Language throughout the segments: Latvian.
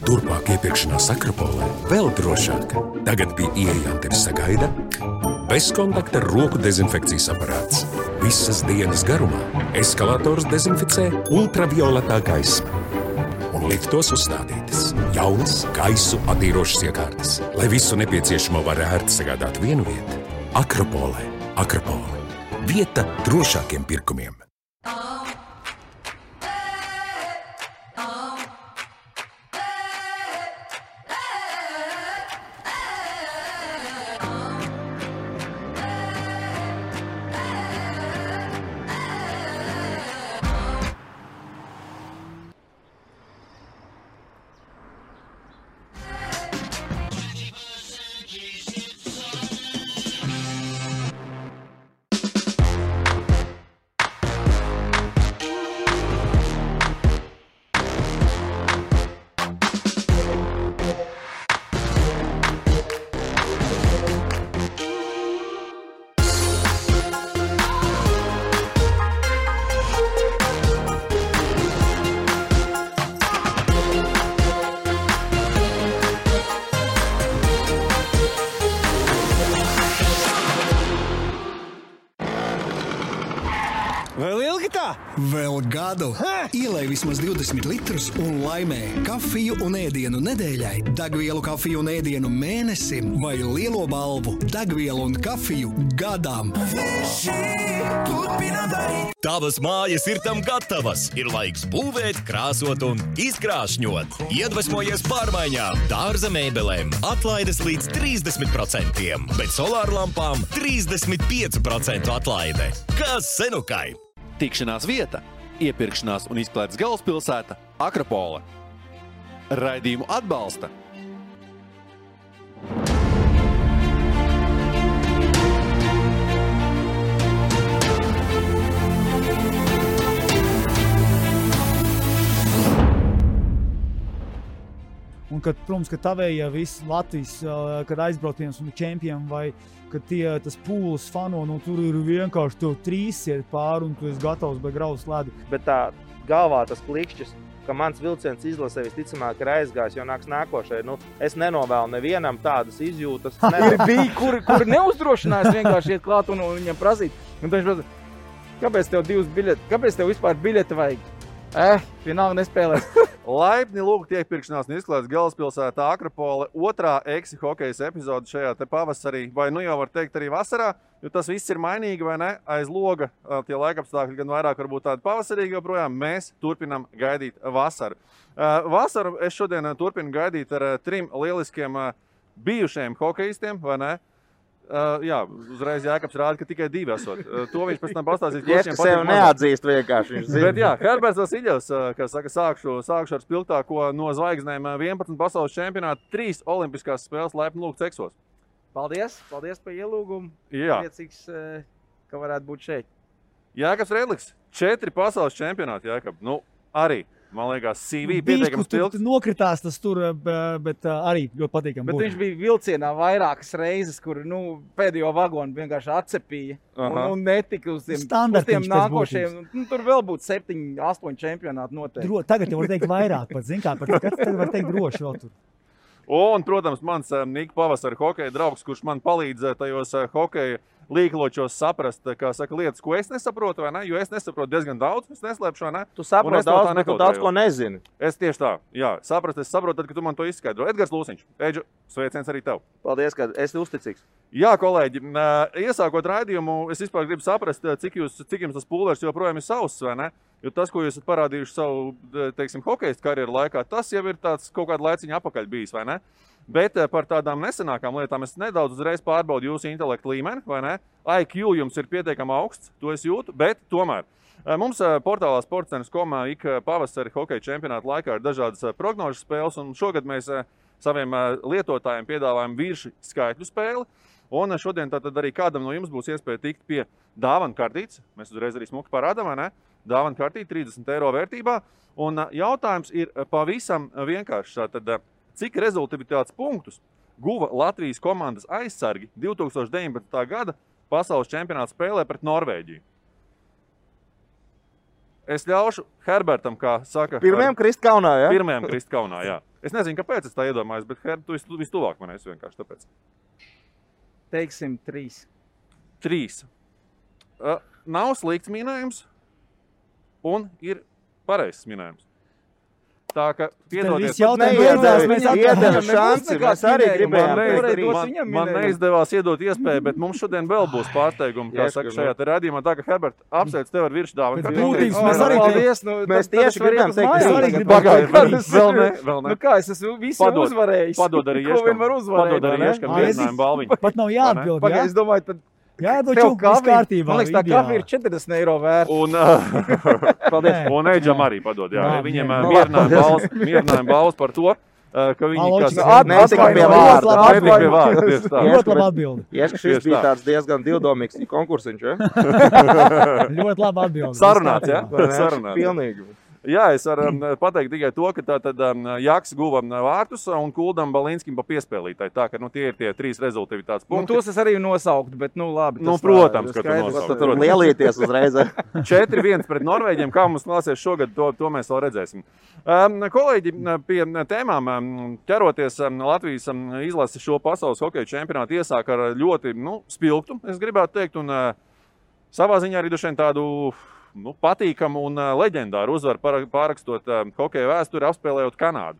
Turpmāk iepirkšanās Akropolē vēl drošāk. Tagad pie ieejām sagaida bezkontakta roku dezinfekcijas aparāts. Visas dienas garumā eskalators dezinficē ultravioletā gaisma. Un liftos uzstādītas jaunas gaisu attīrošas iekārtas, lai visu nepieciešamo var ērti sagādāt vienu vietu. Akropolē. Akropole. Vieta drošākiem pirkumiem. Vēl ilgi tā? Vēl gadu. Ielej vismaz 20 litrus un laimē kafiju un ēdienu nedēļai, degvielu kafiju un ēdienu mēnesim vai lielo balvu degvielu un kafiju gadam. Tavas mājas ir tam gatavas. Ir laiks būvēt, krāsot un izkrāšņot. Iedvesmojies pārmaiņām. Dārza mēbelēm atlaides līdz 30%, bet solārlampām 35% atlaide. Kas senukai? Tikšanās vieta, iepirkšanās un izklaides galvaspilsēta Akropole. Raidījumu atbalsta Un, kad, protams, ka tavējie visi Latvijas, kad aizbrauciens un čempioni vai kad tas pūles fano, tur ir vienkārši tev trīs iet pāri un tu esi gatavs vai grauz ledu. Bet tā galvā tas klikšķis, ka mans vilciens izlasē visticamāk ir aizgājis, jo nāks nākošai. Es nenovēlu nevienam tādas izjūtas. Bija, kur neuzdrošinājās vienkārši iet klāt un viņam prasīt. Un viņš prasa, kāpēc tev divas biļetes, kāpēc tev vispār biļete vajag? Vienalga nespēlēs. Laipni lūgt iepirkšanās un izklaides galvaspilsētā Akropole 2. Eksi hokejas epizode šajā te pavasarī, vai jau var teikt arī vasarā, jo tas viss ir mainīgi, vai ne? Aiz loga tie laikapstākļi gan vairāk varbūt tādi pavasarīgi, joprojām mēs turpinam gaidīt vasaru. Vasaru es šodien turpinu gaidīt ar 3 lieliskiem bijušajiem hokejistiem, vai ne? Jā, uzreiz Jākabs rāda, ka tikai 2 esot. To viņš pēc tam pastāstīs. Viņš sev neatzīst vienkārši. Bet jā, Herberts Vasiļevs, kā saka, sākšu ar spilgtāko no zvaigznēm 11 pasaules čempionātu, 3 olimpiskās spēles laipni lūgts Eksos. Paldies par ielūgumu. Jā. Priecīgs, ka varētu būt šeit. Jākabs Redliks, 4 pasaules čempionāti, Jākab. Arī. Man liekas, CV pietiekami spilgts. Nokritās tas tur, bet arī ļoti patīkami. Bet viņš bija vilcienā vairākas reizes, kur pēdējo vagonu vienkārši atcepīja. Un netika uz tiem nākošiem. Tur vēl būtu 7, 8 čempionāti noteikti. Tagad jau var teikt vairāk pat, zin kā, tagad var teikt droši vēl tur. Un, protams, mans Nika pavasara hokeja draugs, kurš man palīdz tajos hokeja līkločos saprast, kā saka, lietas, ko es nesaprotu, vai ne? Jo es nesaprotu diezgan daudz, es neslēpšu, vai ne? Tu saproti daudz, bet tu daudz ko nezini. Es tieši tā, jā, es saprotu, tad, kad tu man to izskaidro. Edgars Lūsiņš, Eģu, sveiciens arī tev. Paldies, ka esi uzticīgs. Jā, kolēģi, iesākot raidījumu, es vispār gribu saprast, cik jums tas pulvers joprojām ir sauss, vai ne? Jo tas, ko jūs esat parādījuši savu, teiksim, hokejistu karjeru laikā, tas jau ir tāds kaut kāda laiciņa apakaļ bijis, vai ne? Bet par tādām nesenākām lietām es nedaudz uzreiz pārbaudu jūsu intelektu līmeni, vai ne? IQ jums ir pietiekami augsts, to es jūtu, bet tomēr. Mums portālā sportcenas.com ik pavasari hokeja čempionāta laikā ir dažādas prognožu spēles, un šogad mēs saviem lietotājiem piedāvājam virši skaitļu spēli. Un šodien tātad arī kādam no jums būs iespēja tikt pie dāvanu kartītes. Mēs uzreiz arī smuki parādām, vai ne? Dāvanu kartīte 30 eiro vērtībā. Un jautājums ir pavisam vienkārši. Tātad, cik rezultatīvitātes punktus guva Latvijas komandas aizsargi 2019. gada pasaules čempionāta spēlē pret Norvēģiju? Es ļaušu Herbertam, kā saka... Pirmajam krist kaunā, jā? Pirmajam krist kaunā, jā. Es nezinu, kāpēc es tā iedomājos, bet Herb, tu vistuvāk man esi vienkārši tāpēc. Teiksim 3. 3. Nav slikts minējums un ir pareizs minējums. Tā ka, piedodies, Viss jautājums beidzās, mēs iedeva šansi, mēs arī gribējām. Man neizdevās iedot iespēju, bet mums šodien vēl būs pārsteigumi, kā saka šajā te radījumā. Tā ka, Herbert, apsveic tev ar viršdāvanu. Pēc būtības mēs arī Mēs tieši gribējām teikt, Vēl ne. Nu kā, es esmu visu uzvarējis. Padod arī Ko vien var uzvarēt, Padod arī vai ne? Ieškam viesinājumu balviņu. Pat nav jāatbild, jā? Pagaid, es domāju, tad Jā, tev doču, viss kārtībā. Man liekas, tā kafija ir 40 eiro vērta. Un Eidžam arī padod, jā. Jā, Viņiem jā. mierinājuma balvas par to, ka viņi Aloči, netika pie vārda. Netika pie vārda, tieši tā. Ļoti labi atbildi. Ieska, šis bija tāds diezgan divdomīgs konkursiņš, ja? Ļoti labi atbildi. Sarunāts, jā? Sarunāts. Pilnīgi. Jā, es varu pateikt tikai to, ka tātad Jaks guva vārtus un Kuldam Balinskim pa piespēlītāji. Tā, ka tie ir tie 3 rezultātivitātes punkti. Tos es arī nosauktu, bet labi. Protams, ka tu nosaukt. Tur lielīties uzreiz. 4-1 pret Norvēģiem. Kā mums klāsies šogad, to mēs vēl redzēsim. Kolēģi, pie tēmām ķeroties, Latvijas izlase šo pasaules hokeja čempionātu iesāk ar ļoti spilgtu, es gribētu teikt, un savā ziņā arī dušiem tādu patīkamu un leģendāru uzvaru pārakstot hokeja vēsturi, apspēlējot Kanādu.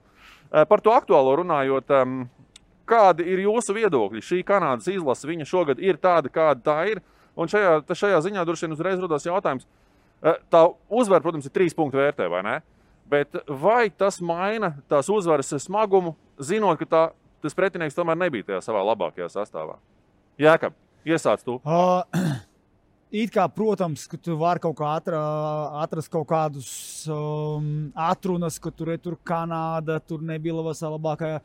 Par to aktuālo runājot, kādi ir jūsu viedokļi? Šī Kanādas izlase, viņa šogad ir tāda, kāda tā ir, un šajā ziņā droši vien uzreiz rodās jautājums. Tā uzvara, protams, ir 3 punktu vērtē, vai ne? Bet vai tas maina tās uzvaras smagumu, zinot, ka tas pretinieks tomēr nebija tajā savā labākajā sastāvā? Jākab, iesāc tu. It kā, protams, ka tu vari kaut kā atrast kaut kādus atrunas, ka tur Kanāda, tur nebija labākajā,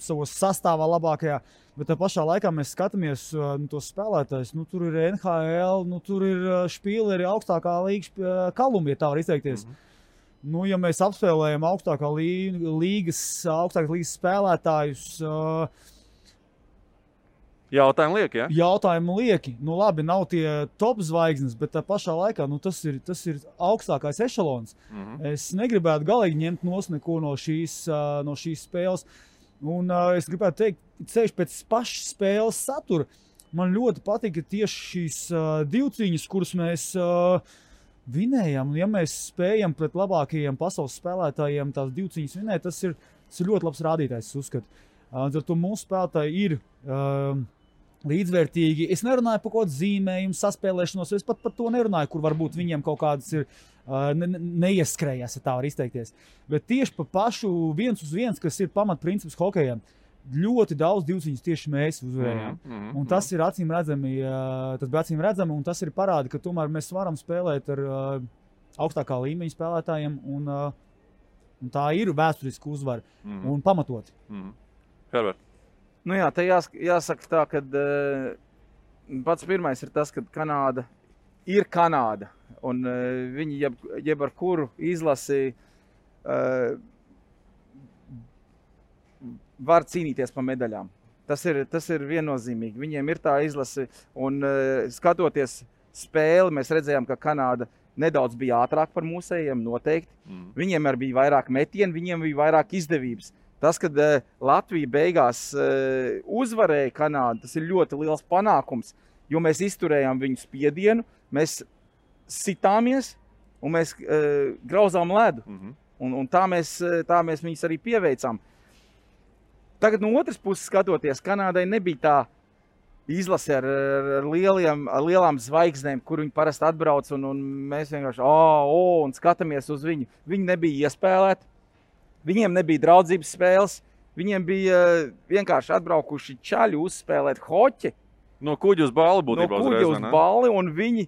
savos sastāvā labākajā, bet tā pašā laikā mēs skatāmies tos spēlētājus, tur ir NHL, tur ir špīleri augstākā līgas Kolumbija, tā var izteikties. Ja mēs apspēlējam augstākās līgas spēlētājus, Jautājumi lieki, ja? Jautājumi lieki. Labi, nav tie top zvaigznes, bet tā pašā laikā tas ir augstākais ešalons. Es negribētu galīgi ņemt neko no šīs spēles. Un es gribētu teikt, ceļš pēc pašas spēles satura. Man ļoti patika tieši šīs divcīņas, kuras mēs vinējam. Ja mēs spējam pret labākajiem pasaules spēlētājiem tās divcīņas vinēt, tas ir ļoti labs rādītājs, es uzskatu. Ar to mūsu spēlētāji ir līdzvērtīgi. Es nerunāju par kaut kādu zīmējumu, saspēlēšanos, es pat par to nerunāju, kur varbūt viņiem kaut kādas ir neieskrējās, ja tā var izteikties. Bet tieši par pašu 1-1, kas ir pamatprincips hokejam, ļoti daudz divcīņas tieši mēs uzvarējām. Un tas ir acīm redzami, un tas ir parādi, ka tomēr mēs varam spēlēt ar augstākā līmeņa spēlētājiem, un tā ir vēsturiska uzvara un pamatoti. Herbert. Te jāsaka tā, ka pats pirmais ir tas, ka Kanāda ir Kanāda, un viņi jeb ar kuru izlasi var cīnīties par medaļām. Tas ir viennozīmīgi. Viņiem ir tā izlase, un skatoties spēli, mēs redzējām, ka Kanāda nedaudz bija ātrāk par mūsējiem, noteikti. Viņiem arī bija vairāk metienu, viņiem bija vairāk izdevības. Tas, kad Latvija beigās uzvarēja Kanādu, tas ir ļoti liels panākums, jo mēs izturējām viņu spiedienu, mēs sitāmies un mēs grauzām ledu. Un tā mēs viņus arī pieveicām. Tagad no otras puses skatoties, Kanādai nebija tā izlase ar lielām zvaigznēm, kur viņi parasti atbrauc, un mēs vienkārši un skatāmies uz viņu. Viņi nebija iespēlēti. Viņiem nebija draudzības spēles, viņiem bija vienkārši atbraukuši čaļi uzspēlēt hoķi. No kuģa uz balli būtībā uzreiz, no kuģa uz balli, un viņi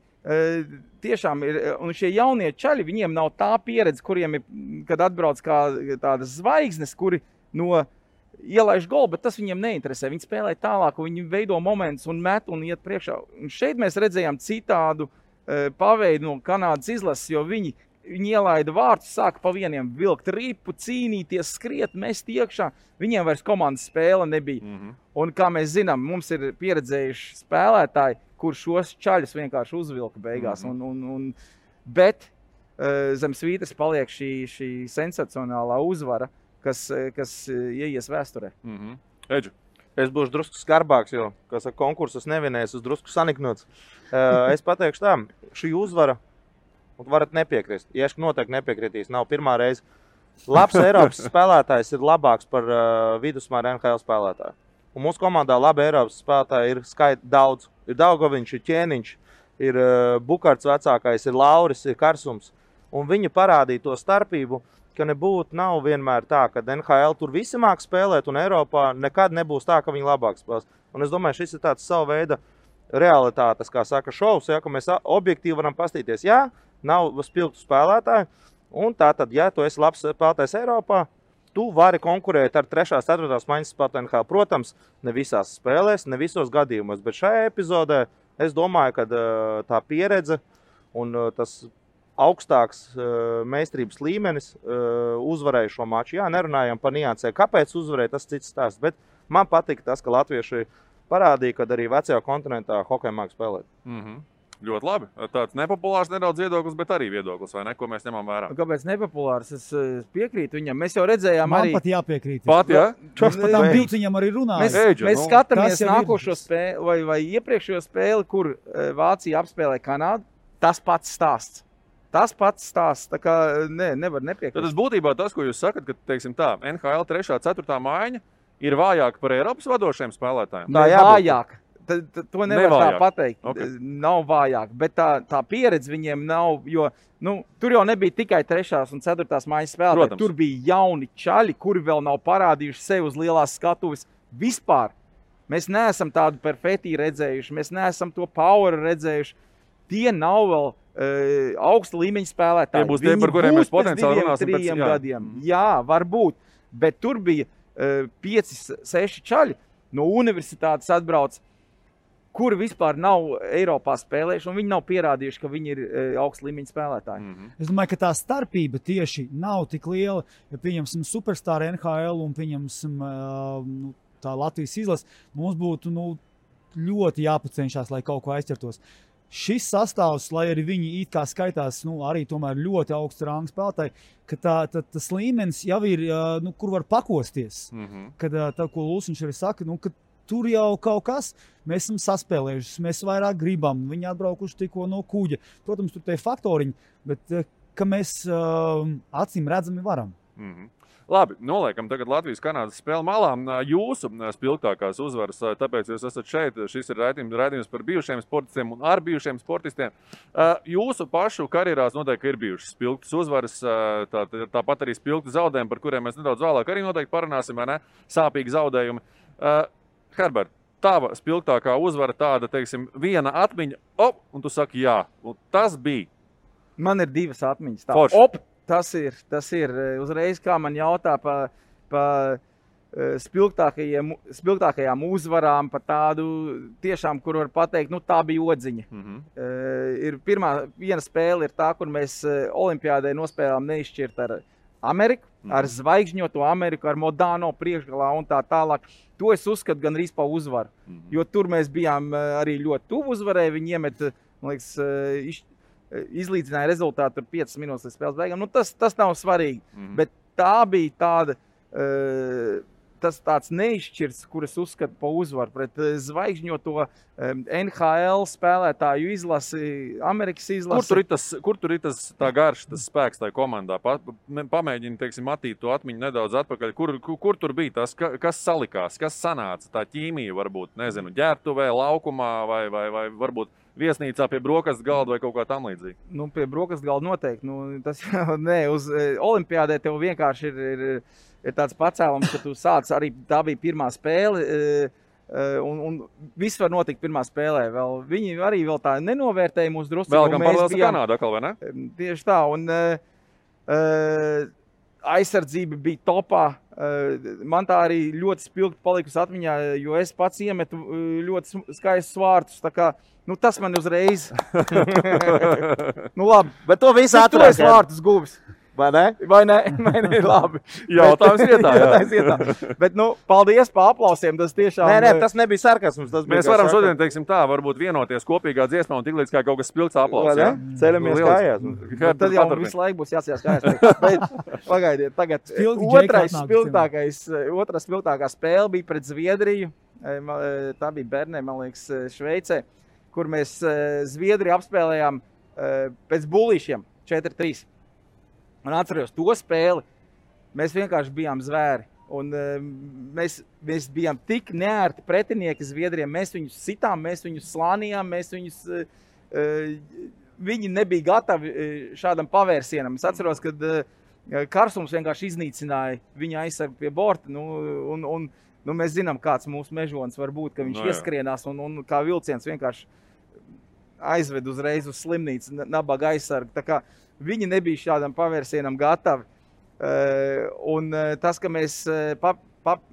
tiešām ir, un šie jaunie čaļi, viņiem nav tā pieredze, kuriem ir, kad atbrauc kā tādas zvaigznes, kuri ielaiž golu, bet tas viņiem neinteresē. Viņi spēlē tālāk, viņi veido momentus un met un iet priekšā. Un šeit mēs redzējām citādu paveidu no Kanādas izlases, jo viņi ielaida vārtus, sāka pa vieniem vilkt ripu, cīnīties, skriet, mest iekšā. Viņiem vairs komandas spēle nebija. Un kā mēs zinām, mums ir pieredzējuši spēlētāji, kur šos čaļus vienkārši uzvilka beigās. Bet zem svītras paliek šī sensacionālā uzvara, kas ieies vēsturē. Eģu. Es būšu drusku skarbāks, jo, kā saka, konkursus nevinēs, uz drusku saniknots. Es pateikšu tā, šī uzvara, varat nepiekrist, Ieška noteikti nepiekritīs, nav pirmā reize. Labs Eiropas spēlētājs ir labāks par vidusmēra NHL spēlētāju. Un mūsu komandā labi Eiropas spēlētāji ir daudz. Ir Daugoviņš, ir Ķēniņš, ir Bukarts vecākais, ir Lauris, ir Karsums. Un viņi parādīja to starpību, ka nav vienmēr tā, ka NHL tur visi māk spēlēt, un Eiropā nekad nebūs tā, ka viņi labāk spēlēs. Un es domāju, šis ir tāds savu veidu realitātes, kā saka, šovs, ja, ka mēs objektīvi varam pastīties. Jā, nav spilgtu spēlētāju, un tātad, ja tu esi labs spēlētājs Eiropā, tu vari konkurēt ar 3. 4. maiņas spēlētāju NHL. Protams, ne visās spēlēs, ne visos gadījumos, bet šajā epizodē es domāju, ka tā pieredze un tas augstāks meistarības līmenis uzvarēja šo maču. Jā, nerunājam par niansē, kāpēc uzvarēja, tas cits stāsts, bet man patika tas, ka latvieši parādīja, ka arī vecajā kontinentā hokeju māk spēlēt. Ļoti labi. Tāds nepopulārs nedaudz viedoklis, bet arī viedoklis, vai ne, ko mēs ņemam vērā. Kāpēc nepopulārs? Es piekrītu viņam. Mēs jau redzējām Man pat jāpiekrīt. Pat, jā? Par tām divciņām arī runāja. Mēs skatāmies nākošo spēli vai iepriekšējo spēli, kur Vācija apspēlē Kanādu. Tas pats stāsts. Tā kā nevar nepiekrist. Tad būtībā tas, ko jūs sakat, ka, teiksim tā, NHL 3. 4. maiņa ir vājāka par Eiropas vadošajiem spēlētājiem? Tā vājāk. To nevar tā pateikt. Okay. Nav vājāk, bet tā pieredze viņiem nav, jo tur jau nebija tikai 3. un 4. maiņas spēlētāji. Protams. Tur bija jauni čaļi, kuri vēl nav parādījuši sevi uz lielās skatuves vispār. Mēs neesam tādu perfekti redzējuši, mēs neesam to power redzējuši. Tie nav vēl augsta līmeņa spēlētāji. Tie būs tie, par kuriem mēs potenciāli runāsim pēc 3 gadiem. Jā, varbūt, bet tur bija 5-6 čaļi no universitātes atbrauc, kuri vispār nav Eiropā spēlējuši, un viņi nav pierādījuši, ka viņi ir augsta līmeņa spēlētāji. Es domāju, ka tā starpība tieši nav tik liela, ja pieņemsim superstar NHL un pieņemsim tā Latvijas izlase, mums būtu ļoti jāpacenšās, lai kaut ko aizķertos. Šis sastāvs, lai arī viņi it kā skaitās, arī tomēr ļoti augsts ranga spēlētāji, ka tas līmenis jau ir, kur var pakosties. Kad tā, ko Lūsiņš arī saka, ka tur jau kaut kas, mēs esam saspēlējuši, mēs vairāk gribam, viņi atbraukuši tikko no kuģa. Protams, tur tie faktoriņi, bet ka mēs acīm redzami varam. Labi, noliekam tagad Latvijas-Kanādas spēli malā. Jūsu spilgtākās uzvaras, tāpēc jūs esat šeit. Šis ir raidījums par bijušiem sportistiem un ar bijušiem sportistiem. Jūsu pašu karjerās noteikti ir bijušas spilgtas uzvaras, tāpat arī spilgti zaudējumi, par kuriem mēs nedaudz vēlāk arī noteikti parunāsim, vai ne? Sāpīgi zaudējumi. Herbert, tava spilgtākā uzvara tāda, teiksim, viena atmiņa, un tu saki jā, un tas bija. Man ir 2 atmiņas. Tas ir uzreiz, kā man jautā par spilgtākajām uzvarām, par tādu tiešām, kur var pateikt, tā bija odziņa. Viena spēle ir tā, kur mēs olimpiādē nospēlējām neizšķirt ar Ameriku, ar zvaigžņoto Ameriku, ar Modano priekšgalā un tā tālāk. To es uzskatu gan arī par uzvaru, jo tur mēs bijām arī ļoti tuvu uzvarēji. Viņi iemet, man liekas, izlīdzināja rezultātu 5 minūtes līdz spēles beigām. Tas nav svarīgi, bet tā bija tāda, tāds neizšķirts, kur es uzskatu par uzvaru pret zvaigžņoto NHL spēlētāju izlasi, Amerikas izlasi. Kur tur ir tas tā garš, tas spēks tajā komandā? Pamēģini, teiksim, attīt to atmiņu nedaudz atpakaļ. Kur tur bija tas, kas salikās, kas sanāca? Tā ķīmija varbūt, nezinu, ģērbtuvē, laukumā vai varbūt viesnīcā pie brokastu galda vai kaut kā tam līdzīga? Pie brokastu galda noteikti. Tas jau uz olimpiādē tev vienkārši ir tāds pacēlums, ka tu sāc arī, tā bija pirmā spēle, un viss var notikt pirmā spēlē. Viņi arī vēl tā nenovērtēja mūsu drusku. Vēl gan paralēls ar Kanādu atkal, vai ne? Tieši tā, un aizsardzība bija topā. Man tā arī ļoti spilgti palikusi atmiņā, jo es pats iemetu ļoti skaistus vārtus. Tā kā, tas man uzreiz... Labi. Bet to visu ātrāk. Tu esi vārtus guvis. Vai ne? Vai ne? Labi. Jautājums vietā, jā. Jautājums vietā. Bet, nu, paldies par aplausiem. Tas tiešām... Nē, tas nebija sarkasms. Mēs varam šodien, teiksim tā, varbūt vienoties kopīgā dziesmā un tik līdz kā kaut kas spilgts aplausi. Vai ne? Ceļamies kājās. Tad jau visu laiku būs jāsījās kājās. Bet pagaidiet, tagad otrā spilgtākā spēle bija pret Zviedriju. Tā bija Bernē, man liekas, Šveicē, kur mēs Zviedriju apspēlējām pēc bulīšiem 4-3. Un atceros to spēli, mēs vienkārši bijām zvēri. Un mēs bijām tik neērti pretinieki Zviedriem. Mēs viņus sitām, mēs viņus slānījām, viņi nebija gatavi šādam pavērsienam. Es atceros, kad Karsums vienkārši iznīcināja viņa aizsargu pie borta. Nu, mēs zinām, kāds mūsu mežonis var būt, ka viņš ieskrienās un kā vilciens vienkārši aizved uzreiz uz slimnīcu nabaga aizsargu. Tā kā viņi nebija šādam pavērsienam gatavi. Un tas, ka mēs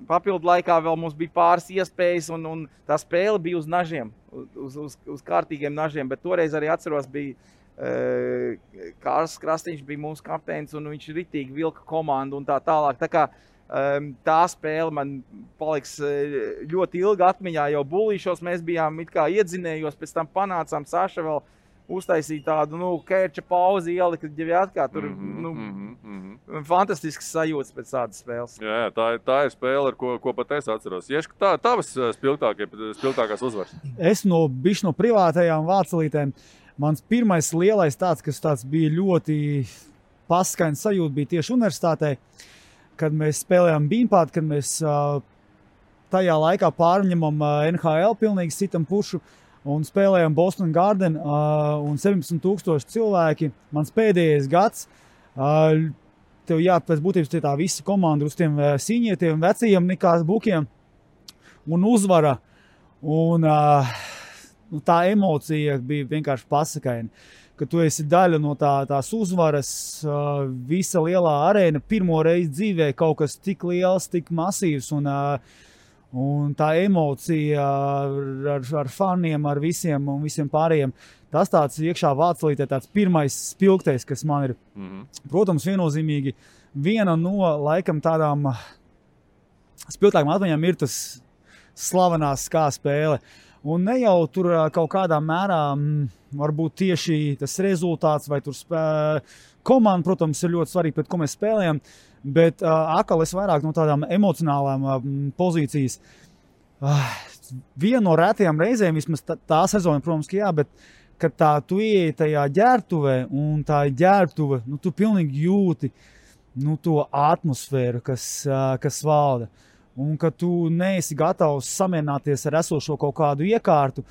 papildu laikā vēl mums bija pāris iespējas un tā spēle bija uz nažiem, uz kārtīgiem nažiem, bet toreiz arī atceros bija Kārs Krastīņš bija mūsu kapteinis un viņš ritīgi vilka komandu un tā tālāk. Tā kā tā spēle man paliks ļoti ilga atmiņā, jau bulīšos mēs bijām it kā iedzinējos, pēc tam panācām Saša vēl uztaisīt tādu, kērča pauzi ielika ģeviatkā, tur, fantastisks sajūtas pēc tādas spēles. Jā, tā ir spēle, ar ko pat es atceros. Ieška, tavas spilgtākās uzvaras? Es no privātajām vācelītēm, mans pirmais lielais kas bija ļoti paskains sajūta, bija tieši universitātē, kad mēs spēlējām Beanpad, kad mēs tajā laikā pārņemam NHL, pilnīgi sitam pušu, un spēlējām Boston Garden un 17,000 cilvēki. Mans pēdējais gads, tev pēc būtības tā visa komanda uz tiem sīņietiem, vecajiem nekās bukiem un uzvara. Un tā emocija bija vienkārši pasakaina, ka tu esi daļa no tās uzvaras, visa lielā arēna, pirmo reizi dzīvē kaut kas tik liels, tik masīvs un tā emocija ar faniem, ar visiem un visiem pārējiem. Tas tāds iekšā vācelītē tāds pirmais spilgtais, kas man ir. Protams, viennozīmīgi viena no laikam tādām spilgtākām atmiņām ir tas slavenās skā spēle. Un ne jau tur kaut kādā mērā varbūt tieši tas rezultāts vai tur komanda, protams, ir ļoti svarīgi, pret ko mēs spēlējam, bet atkal es vairāk no tādām emocionālām pozīcijas. Viena no rētajām reizēm, vismaz tā sezona, protams, ka jā, bet kad tu ieeji tajā ģērbtuvē un tā ģērbtuve, tu pilnīgi jūti to atmosfēru, kas valda. Un ka tu neesi gatavs samierināties ar esošo kaut kādu iekārtu,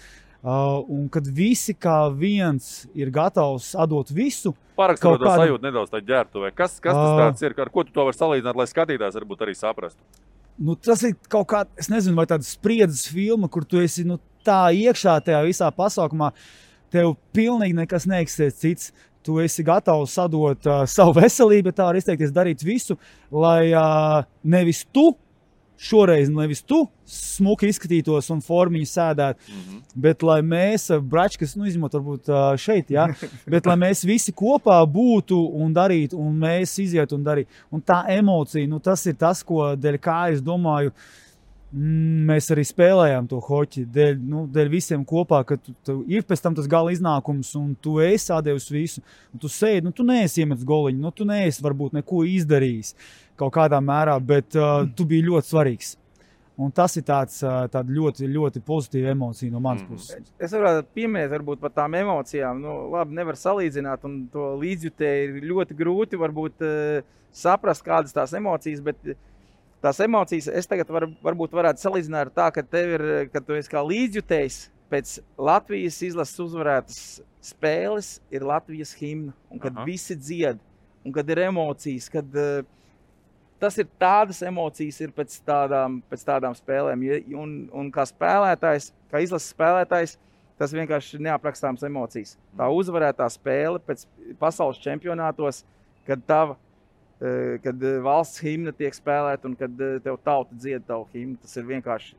un kad visi kā viens ir gatavs atdot visu. Parakstot to sajūtu nedaudz tā ģērbtuvē. Kas tas tāds ir? Ar ko tu to vari salīdzināt, lai skatītājs varbūt arī saprastu? Tas ir kaut kā, es nezinu, vai tāda spriedzes filma, kur tu esi tā iekšā tajā visā pasaukumā, tev pilnīgi nekas neeksistē cits. Tu esi gatavs atdot savu veselību, tā var izteikties, darīt visu, lai nevis tu smuki izskatītos un formiņu sēdētu, bet lai mēs, bračkas, izņemot varbūt šeit, jā, bet lai mēs visi kopā būtu un darītu, un mēs izietu un darītu. Un tā emocija, tas ir tas, ko dēļ kā es domāju, mēs arī spēlējām to hoķi, dēļ visiem kopā, ka tu ir pēc tam tas gala iznākums, un tu esi atdevis visu, un tu sēdi, tu neesi iemetis goliņu, tu neesi varbūt neko izdarījis kaut kādā mērā, bet tu biji ļoti svarīgs. Un tas ir tāda ļoti, ļoti pozitīva emocija no manas puses. Es varētu pieminēt varbūt par tām emocijām. Labi, nevar salīdzināt, un to līdzjutēji ir ļoti grūti varbūt saprast, kādas tās emocijas, bet tās emocijas es tagad varbūt varētu salīdzināt ar tā, ka tu esi kā līdzjutējs pēc Latvijas izlases uzvarētas spēles ir Latvijas himna, un kad visi dzied, un kad ir emocijas, kad tas ir tādas emocijas ir pēc tādām spēlēm, un kā spēlētājs, kā izlases spēlētājs, tas vienkārši ir neaprakstāms emocijas. Tā uzvarētā spēle pēc pasaules čempionātos, kad valsts himna tiek spēlēta un kad tev tauta dzied tavu himnu, tas ir vienkārši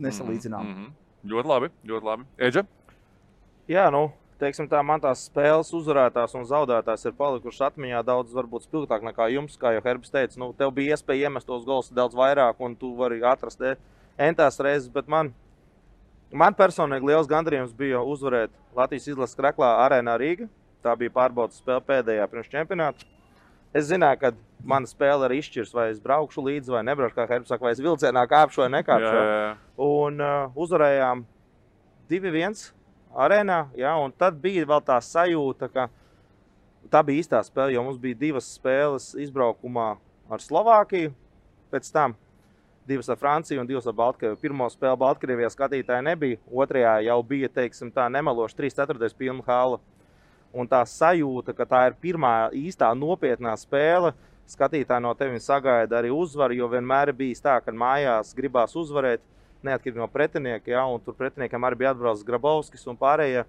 nesalīdzināms. Ļoti labi, ļoti labi. Eģa? Jā, teiksim tā, man tās spēles uzvarētās un zaudētās ir palikušas atmiņā daudz varbūt spilgtāk nekā jums, kā jau Herbis teica. Nu, tev bija iespēja iemest tos gols daudz vairāk un tu vari atrast entās reizes, bet man personīgi liels gandarījums bija uzvarēt Latvijas izlases Kraklā Arēnā Rīga. Tā bija pārbaudas spēle pēdējā pirms čempionāta. Es zināju, ka mana spēle arī izšķirs, vai es braukšu līdzi vai nebraukšu, kā Herbis saka, vai es vilcienā kāpšu vai nekāpšu. Un uzvarējām 2-1 Arēnā, un tad bija vēl tā sajūta, ka tā bija īstā spēle, jo mums bija 2 spēles izbraukumā ar Slovākiju, pēc tam 2 ar Franciju un 2 ar Baltkrieviju. Pirmo spēli Baltkrievijā skatītāji nebija, otrajā jau bija, teiksim tā, nemaloši 3/4 pilna hala. Un tā sajūta, ka tā ir pirmā īstā nopietnā spēle, skatītāji no tevi sagaida arī uzvaru, jo vienmēr ir bijis tā, ka mājās gribās uzvarēt, neatkarīgi no pretinieka, un tur pretiniekam arī bija atbraucis Grabovskis un pārējie.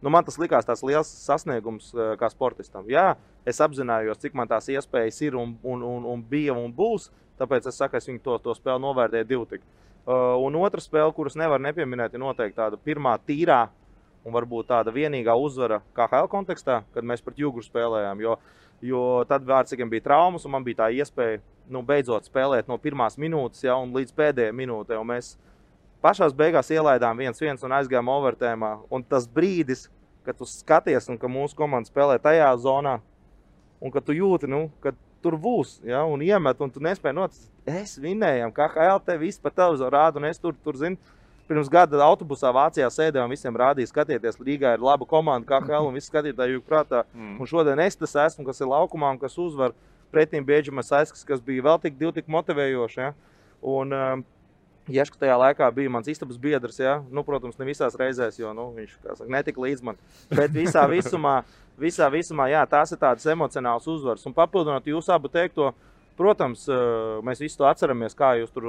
Nu, man tas likās tās liels sasniegums kā sportistam. Jā, es apzinājos, cik man tās iespējas ir un bija un būs, tāpēc es saku, es viņu to spēli novērtēju 2. Un otra spēle, kuras nevar nepieminēt, ir noteikti tāda pirmā tīrā un varbūt tāda vienīgā uzvara KHL kontekstā, kad mēs pret Juguru spēlējām, jo tad Vārtsīgiem bija traumas un man bija tā iespēja beidzot spēlēt no pirmās minūtes un līdz pēdējai minūtei. Un mēs pašās beigās ielaidām 1-1 un aizgājām overtēmā. Un tas brīdis, kad tu skaties un ka mūsu komanda spēlē tajā zonā un ka tu jūti, ka tur būs, un iemet un tu nespēji noticēt, es vinējam, KHL te viss pa televizoru rāda un es tur zinu, pirms gada autobusā Vācijā sēdēju un visiem rādīja, skatieties, Rīgā ir laba komanda KHL un visi skatītāji jūg prātā. Un šodien es tas esmu, kas ir laukumā un kas uzvar pretīm Bieģimas Aiskas, kas bija vēl tik motivējoši. Un Ješka tajā laikā bija mans istabas biedrs, protams, ne visās reizēs, jo viņš, kā saka, netika līdz man. Bet visā visumā, tās ir tādas emocionāls uzvaras. Un papildinot jūsu abu teikto, protams, mēs visu to atceramies, kā jūs tur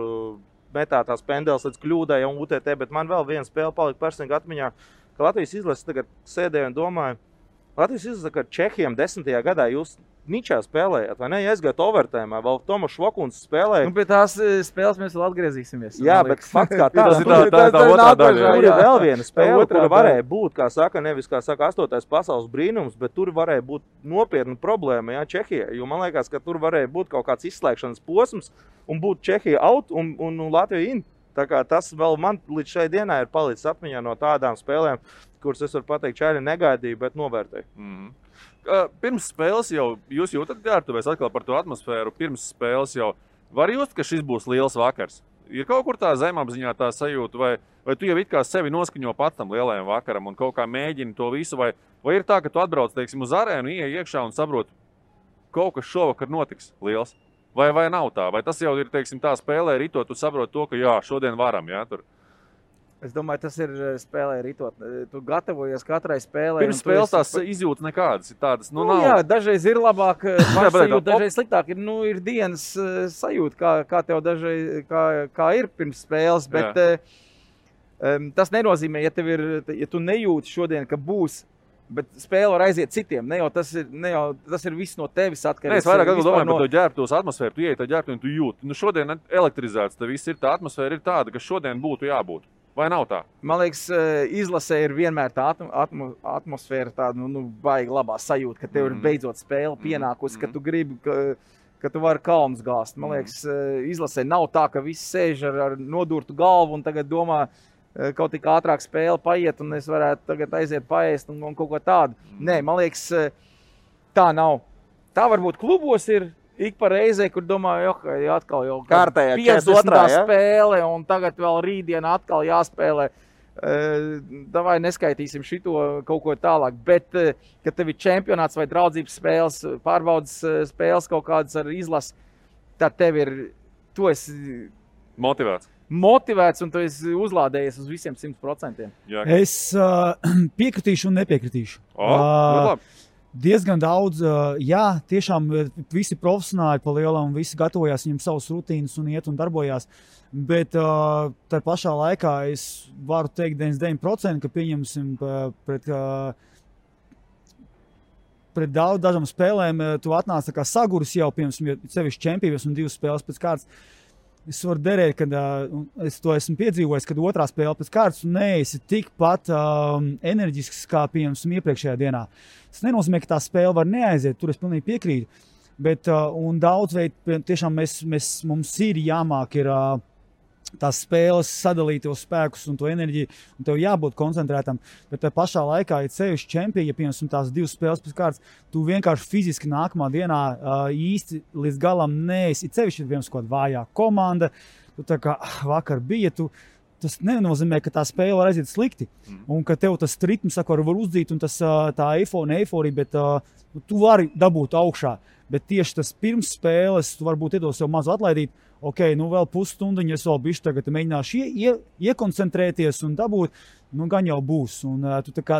metā tās pendeles līdz kļūdai un UTT, bet man vēl viena spēle palika personīgi atmiņā, ka Latvijas izlases tagad sēdēju un domāju, Latvijas izlases, ka Čehiem 10. gadā jūs ničā spēlējāt, vai ne? Aizgājāt overtēmā, vēl Tomas Švokuns spēlēja. Pie tās spēles mēs vēl atgriezīsimies. Jā, bet fakts kā tāds. Tā otrā daļa. Tur ir vēl viena spēle, kura varēja būt, kā saka, nevis, kā saka, 8. pasaules brīnums, bet tur varēja būt nopietna problēma, Čehijai. Jo man liekas, ka tur varēja būt kaut kāds izslēgšanas posms un būt Čehija out un Latvija in. Tā kā tas vēl man līdz šai dienai ir palicis atmiņā no tādām spēlēm, kuras es varu pateikt, šādi negaidīju, bet novērtēju. Pirms spēles jau jūs jūtat ģērbtuvēs atkal par to atmosfēru. Pirms spēles jau var just, ka šis būs liels vakars. Ir kaut kur tā zemapziņā tā sajūta, vai tu jau it kā sevi noskaņo pats tam lielajam vakaram un kaut kā mēģini to visu, vai ir tā, ka tu atbrauc, teiksim, uz arēnu, ieej iekšā un saproti, kaut kas šovakar notiks liels. Vai nav tā? Vai tas jau ir, teiksim, tā spēlē ritot, tu saproti to, ka jā, šodien varam, tur? Es domāju, tas ir spēlē ritot. Tu gatavojies katrai spēlē. Pirms spēles tās izjūtas nekādas ir tādas, nav. Jā, dažreiz ir labāk sajūta, dažreiz sliktāk. Ir dienas sajūta, kā tev dažreiz, kā ir pirms spēles, bet tas nenozīmē, ja tu nejūti šodien, ka būs, bet spēle var aiziet citiem. Tas ir viss no tevis atkarīgs. Es vairāk domāju par to ģērbtos atmosfēru. Tu ieej tā ģērbtu un tu jūti. Šodien elektrizēts, tā viss ir, tā atmosfēra ir tāda, ka šodien būtu jābūt. Vai nav tā? Man liekas, izlasē ir vienmēr tā atmosfēra, tāda baigi labā sajūta, ka tev ir beidzot spēle pienākusi, ka tu gribi, ka tu vari kalnus gāzt. Man liekas, izlasē nav tā, ka visi sēž ar nodurtu galvu un tagad domā, kaut tik ātrāk spēle paiet un es varētu tagad aiziet paēst un kaut ko tādu. Nē, man liekas, tā nav. Tā varbūt klubos ir ik pa reizē, kur domāju, atkal jau kārtējā 50. spēle un tagad vēl rītdien atkal jāspēlē. Davai neskaitīsim šito kaut ko tālāk, bet, kad tev ir čempionāts vai draudzības spēles, pārbaudas spēles kaut kādas ar izlasi, tad tu esi motivēts un tu esi uzlādējies uz visiem 100%. Jā. Es piekritīšu un nepiekritīšu. Diezgan daudz, tiešām visi profesionāļi pa lielam, visi gatavojās, viņam savas rutīnas un iet un darbojās, bet tā pašā laikā es varu teikt 99%, ka pieņemsim pret dažām spēlēm tu atnāc tā kā saguris jau, piemēram, sevišķi čempības un 2 spēles pēc kārtas. Es varu derēt, kad es to esmu piedzīvojis, kad otrā spēle pēc kārtas un neesi tikpat enerģisks kā piemēram iepriekšējā dienā. Tas nenozīmē, ka tā spēle var neaiziet, tur es pilnīgi piekrītu. Bet un daudz veidu tiešām mums ir jāmāk tās spēles sadalīt tos spēkus un to enerģiju, un tev jābūt koncentrētam. Bet tā pašā laikā, ja sevišķi čempioni, ja piemēram tās 2 spēles pēc kārtas, tu vienkārši fiziski nākamā dienā īsti līdz galam neesi. Sevišķi ir viens kaut kāda vājā komanda, tu tā kā vakar bija, tas nenozīmē, ka tā spēle var aiziet slikti. Un ka tev tas ritms var uzdzīt un tā eiforija, bet tu vari dabūt augšā. Bet tieši tas pirms spēles, tu varbūt iedos sev mazu atlaidīt, vēl pusstundiņu, es vēl bišķi tagad mēģināšu iekoncentrēties un dabūt, gan jau būs. Un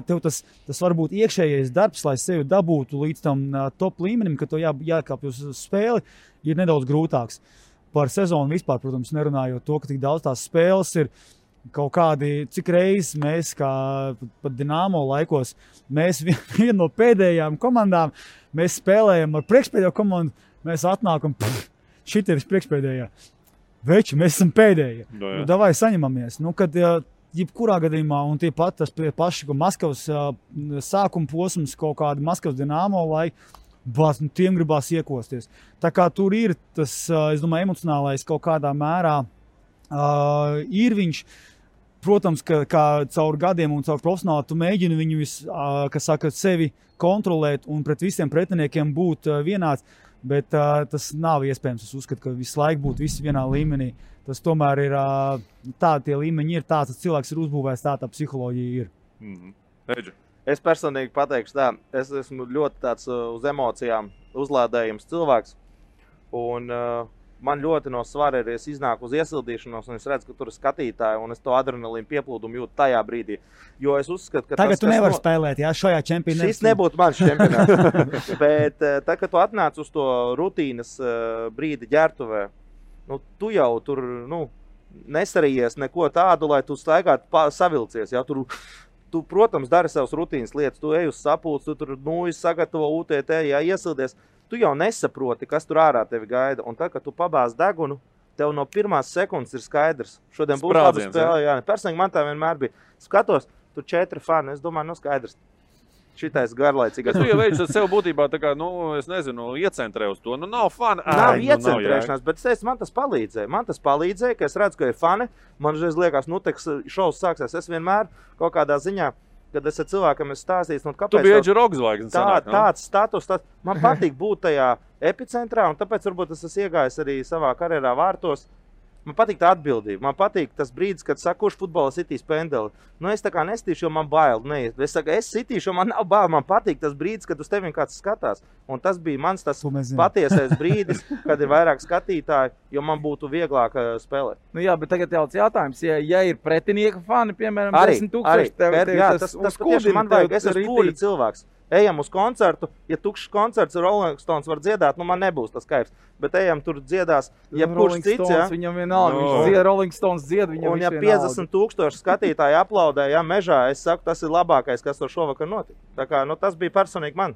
tev tas varbūt iekšējais darbs, lai sevi dabūtu līdz tam top līmenim, ka tev jākāpj uz spēli, ir nedaudz grūtāks. Par sezonu vispār, protams, nerunājot to, ka tik daudz tās spēles ir kaut kādi, cik reizes mēs, kā pat Dinamo laikos, mēs viena no pēdējām komandām, mēs spēlējam ar priekšpēdējo komandu, mēs atnākam, šit ir priekšpēdējā. Veči, mēs esam pēdējie. Davai saņemamies. Kad jebkurā gadījumā, un tie paši Maskavas sākuma posms, kaut kādi Maskavas Dinamo laiki, tiem gribās iekosties. Tā kā tur ir tas, es domāju, emocionālais kaut kādā mērā ir viņš. Protams, ka caur gadiem un caur profesionāli tu mēģini viņu sevi kontrolēt un pret visiem pretiniekiem būt vienāds, bet tas nav iespējams. Es uzskatu, ka visu laiku būtu visi vienā līmenī. Tas tomēr ir tie līmeņi ir tāds, ka cilvēks ir uzbūvējis, tā psiholoģija ir. Es personīgi pateikšu tā, es esmu ļoti tāds uz emocijām uzlādējums cilvēks, un man ļoti no svara ir, es iznāku uz iesildīšanos, un es redzu, ka tur ir skatītāji, un es to adrenalīnu pieplūdumu jūtu tajā brīdī. Jo es uzskatu, ka tagad tu nevari spēlēt, šajā čempionātā. Šis nebūtu mans čempionāts. Bet tā, kad tu atnāc uz to rutīnas brīdi ģertuvē, tu jau tur nesarījies neko tādu, lai tu staigātu savilcies. Ja? Tu, protams, dari savas rutīnas lietas, tu ej uz sapulci, tu tur sagatavo UTT, iesildies. Tu jau nesaproti, kas tur ārā tevi gaida. Un tad, kad tu pabāz degunu, tev no pirmās sekundes ir skaidrs. Šodien būs laba spēle. Jā. Personīgi man tā vienmēr bija. Skatos, tur 4 fani. Es domāju, skaidrs. Šitais garlaicīgais. Tu jau veidži sev būtībā tā kā, es nezinu, iecentrē uz to. Nav fani. Nav iecentrēšanās, bet man tas palīdzēja. Man tas palīdzēja, ka es redzu, ka ir fani. Man žreiz liekas, šovs sāksies. Es vienmēr kaut kādā ziņā, kad es ar cilvēkam stāstīju, kāpēc... Tu biji Edži Rogs zvaigznes. Tāds status, man patīk būt tajā epicentrā, un tāpēc varbūt es esmu iegājis arī savā karjerā vārtos. Man patīk tā atbildība. Man patīk tas brīdis, kad saka, kurš futbolā sitīs pendeli. Es tā kā nestīšu, jo man bail. Es saku, es sitīšu, jo man nav bail. Man patīk tas brīdis, kad uz tevi kāds skatās. Un tas bija mans tas patiesais brīdis, kad ir vairāk skatītāji, jo man būtu vieglāk spēlēt. Jā, bet tagad jautājums, ja ir pretinieka fani, piemēram, 10,000, tas tieši man vajag. Es esmu pūļu cilvēks. Ejam uz koncertu, ja tukšs koncerts Rolling Stones var dziedāt, man nebūs tas kaifs. Bet ejam tur dziedās, jebkurš cits, ja? Viņam vienalga, viņš dzied, Rolling Stones dzied, viņam un ja 50,000 skatītāji aplaudē, mežā, es saku, tas ir labākais, kas tur šovakar notika. Tā kā, tas bija personīgi man.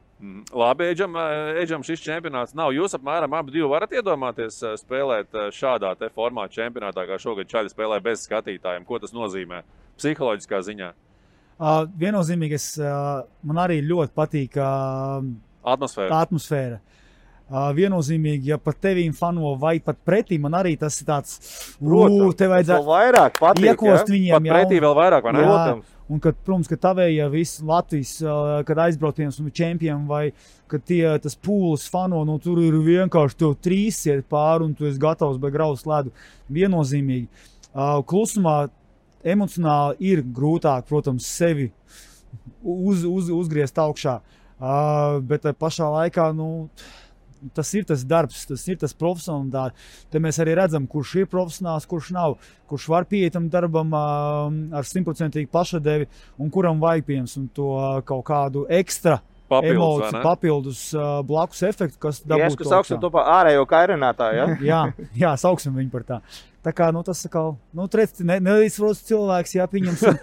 Labi, Edžam šis čempionāts nav. Jūs apmēram abi varat iedomāties spēlēt šādā te formāta čempionātā, kā šogad Čaļi spēlē bez skatītājiem. Ko tas nozīmē psiholoģiskā ziņā? Viennozīmīgi, man arī ļoti patīk atmosfēra. Viennozīmīgi, ja pat tevīm fano vai pat pretī, man arī tas ir tāds, te vajadzētu vairāk patīk, iekost viņiem. Pat pretī vēl vairāk, vai ne? Un, kad, protams, ka tavējie visi Latvijas, kad aizbrauciens un čempioni vai, kad tas pūlis fano, tur ir vienkārši tev 3 iet pāri un tu esi gatavs vai grauz ledu. Viennozīmīgi. Klusumā emocionāli ir grūtāk, protams, sevi uzgriezt augšā, bet pašā laikā, tas ir tas darbs, tas ir tas profesionāls. Te mēs arī redzam, kurš ir profesionāls, kurš nav, kurš var pieiet tam darbam ar 100% pašadevi un kuram vajag piemēram to kaut kādu ekstra emociju, papildus blakus efektu, kas dabūtu. Sauksim to par ārējo kairinātāju, ja? jā, sauksim viņu par tā. Tā kā, tas atkal, neizsprosts cilvēks, pieņemsim.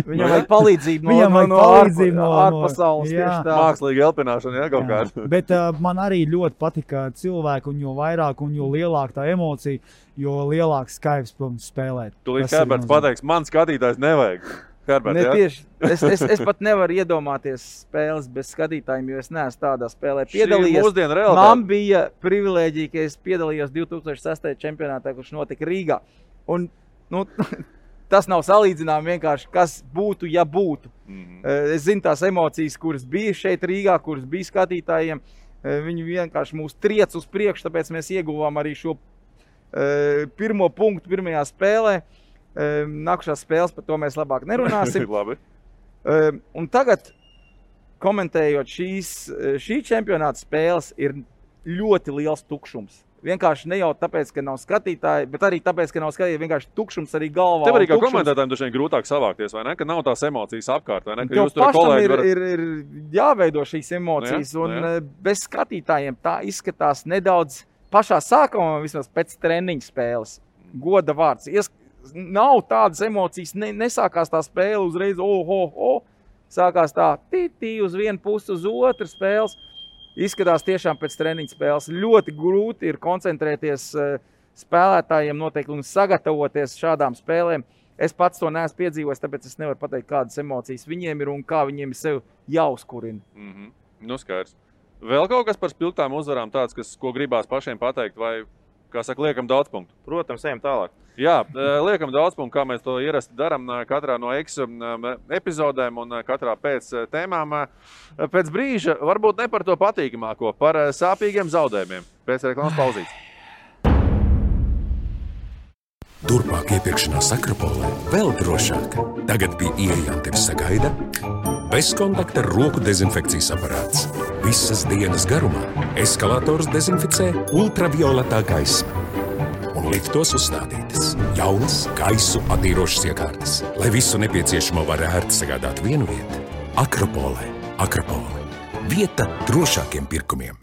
Viņam vajag palīdzību no ārpasaules. Mākslīga elpināšana, kaut kāda. Bet man arī ļoti patika cilvēki, un jo vairāk un jo lielāka tā emocija, jo lielāks kaivs, protams, spēlēt. Tūlīt Herberts pateiks, man skatītājs nevajag. Herbert, tieši. Es pat nevaru iedomāties spēles bez skatītājiem, jo es neesmu tādā spēlē piedalījies. Man bija privilēģija, ka es piedalījos 2006. čempionātā, kurš notika Rīgā. Un, tas nav salīdzinām vienkārši, kas būtu, ja būtu. Es zinu tās emocijas, kuras bija šeit Rīgā, kuras bija skatītājiem. Viņi vienkārši mūs triec uz priekšu, tāpēc mēs ieguvām arī šo pirmo punktu pirmajā spēlē. Nākušās spēles, par to mēs labāk nerunāsim. Labi. Un tagad, komentējot šī čempionāta spēles, ir ļoti liels tukšums. Vienkārši ne jau tāpēc, ka nav skatītāji, bet arī tāpēc, ka nav skatītāji, vienkārši tukšums arī galvā. Tev arī kā komentētājiem dažiem grūtāk savākties, vai ne? Ka nav tās emocijas apkārt, vai ne? Ka jūs tur kolēģi ir jāveido šīs emocijas, un bez skatītājiem tā izskatās nedaudz pašā sākumā, vismaz pēc treniņa spēles. Goda vārds. Nav tādas emocijas, nesākās tā spēle uzreiz, sākās tā tī uz vienu pusi, uz otru spēles. Izskatās tiešām pēc treniņa spēles. Ļoti grūti ir koncentrēties spēlētājiem noteikti un sagatavoties šādām spēlēm. Es pats to neesmu piedzīvojis, tāpēc es nevaru pateikt, kādas emocijas viņiem ir un kā viņiem ir sev jāuzkurina. Skaidrs. Vēl kaut kas par spilgtām uzvarām tāds, ko gribās pašiem pateikt, vai, kā saka, liekam daudz punktu? Protams, ejam tālāk. Jā, liekam daudz punktu, kā mēs to ierasti daram katrā no epizodēm un katrā pēc tēmām. Pēc brīža varbūt ne par to patīkamāko, par sāpīgiem zaudējumiem. Pēc reklāmas pauzītes. Turpmāk iepirkšanās Akropolē vēl drošāk. Tagad pie ieejām tevi sagaida bezkontakta roku dezinfekcijas aparāts. Visas dienas garumā eskalators dezinficē ultravioletā gaisma. Un liftos uzstādītas jaunas gaisu attīrošas iekārtas, lai visu nepieciešamo var ērti sagādāt vienu vietu. Akropolē. Akropole. Vieta drošākiem pirkumiem.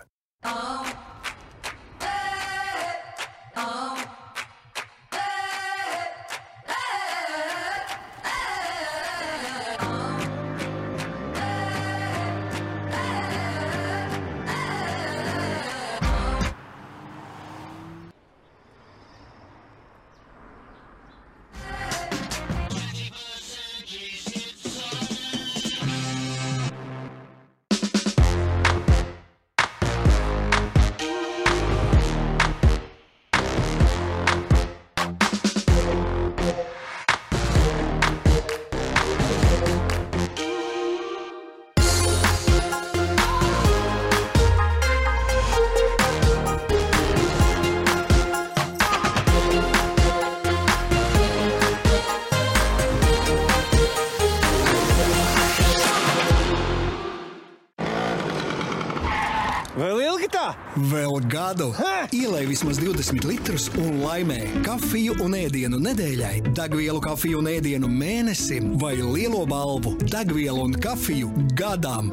Vēl gadu. Ielej vismaz 20 litrus un laimē kafiju un ēdienu nedēļai, degvielu kafiju un ēdienu mēnesim vai lielo balvu degvielu un kafiju gadam.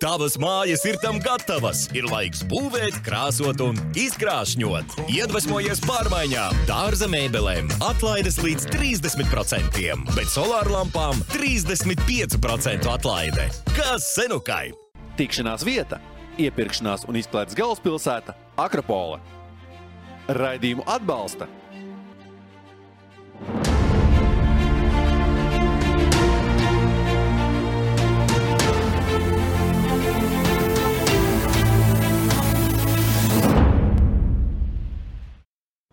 Tavas mājas ir tam gatavas. Ir laiks būvēt, krāsot un izkrāšņot. Iedvesmojies pārmaiņām, dārza mēbelēm, atlaides līdz 30%, bet solārlampām 35% atlaide. Kas senukai? Tikšanās vieta, iepirkšanās un izklaides galvaspilsēta Akropole. Raidījumu atbalsta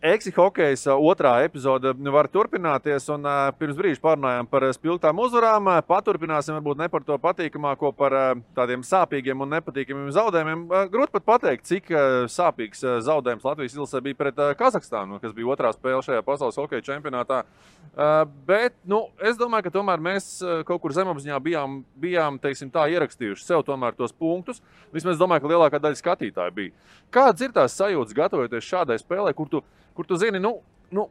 Eksi hokejs otrā epizode var turpināties, un pirms brīža pārunājām par spilgtām uzvarām. Paturpināsim varbūt ne par to patīkamāko, par tādiem sāpīgiem un nepatīkamiem zaudējumiem. Grūti pat pateikt, cik sāpīgs zaudējums Latvijas izlasē bija pret Kazahstānu, kas bija otrā spēle šajā pasaules hokeja čempionātā. Bet es domāju, ka tomēr mēs kaut kur zemapziņā bijām teiksim tā, ierakstījuši sev tomēr tos punktus. Vismaz es domāju, ka lielākā daļa skatītāju bija. Kādas ir tās sajūtas gatavoties šādai spēlē, kur tu zini,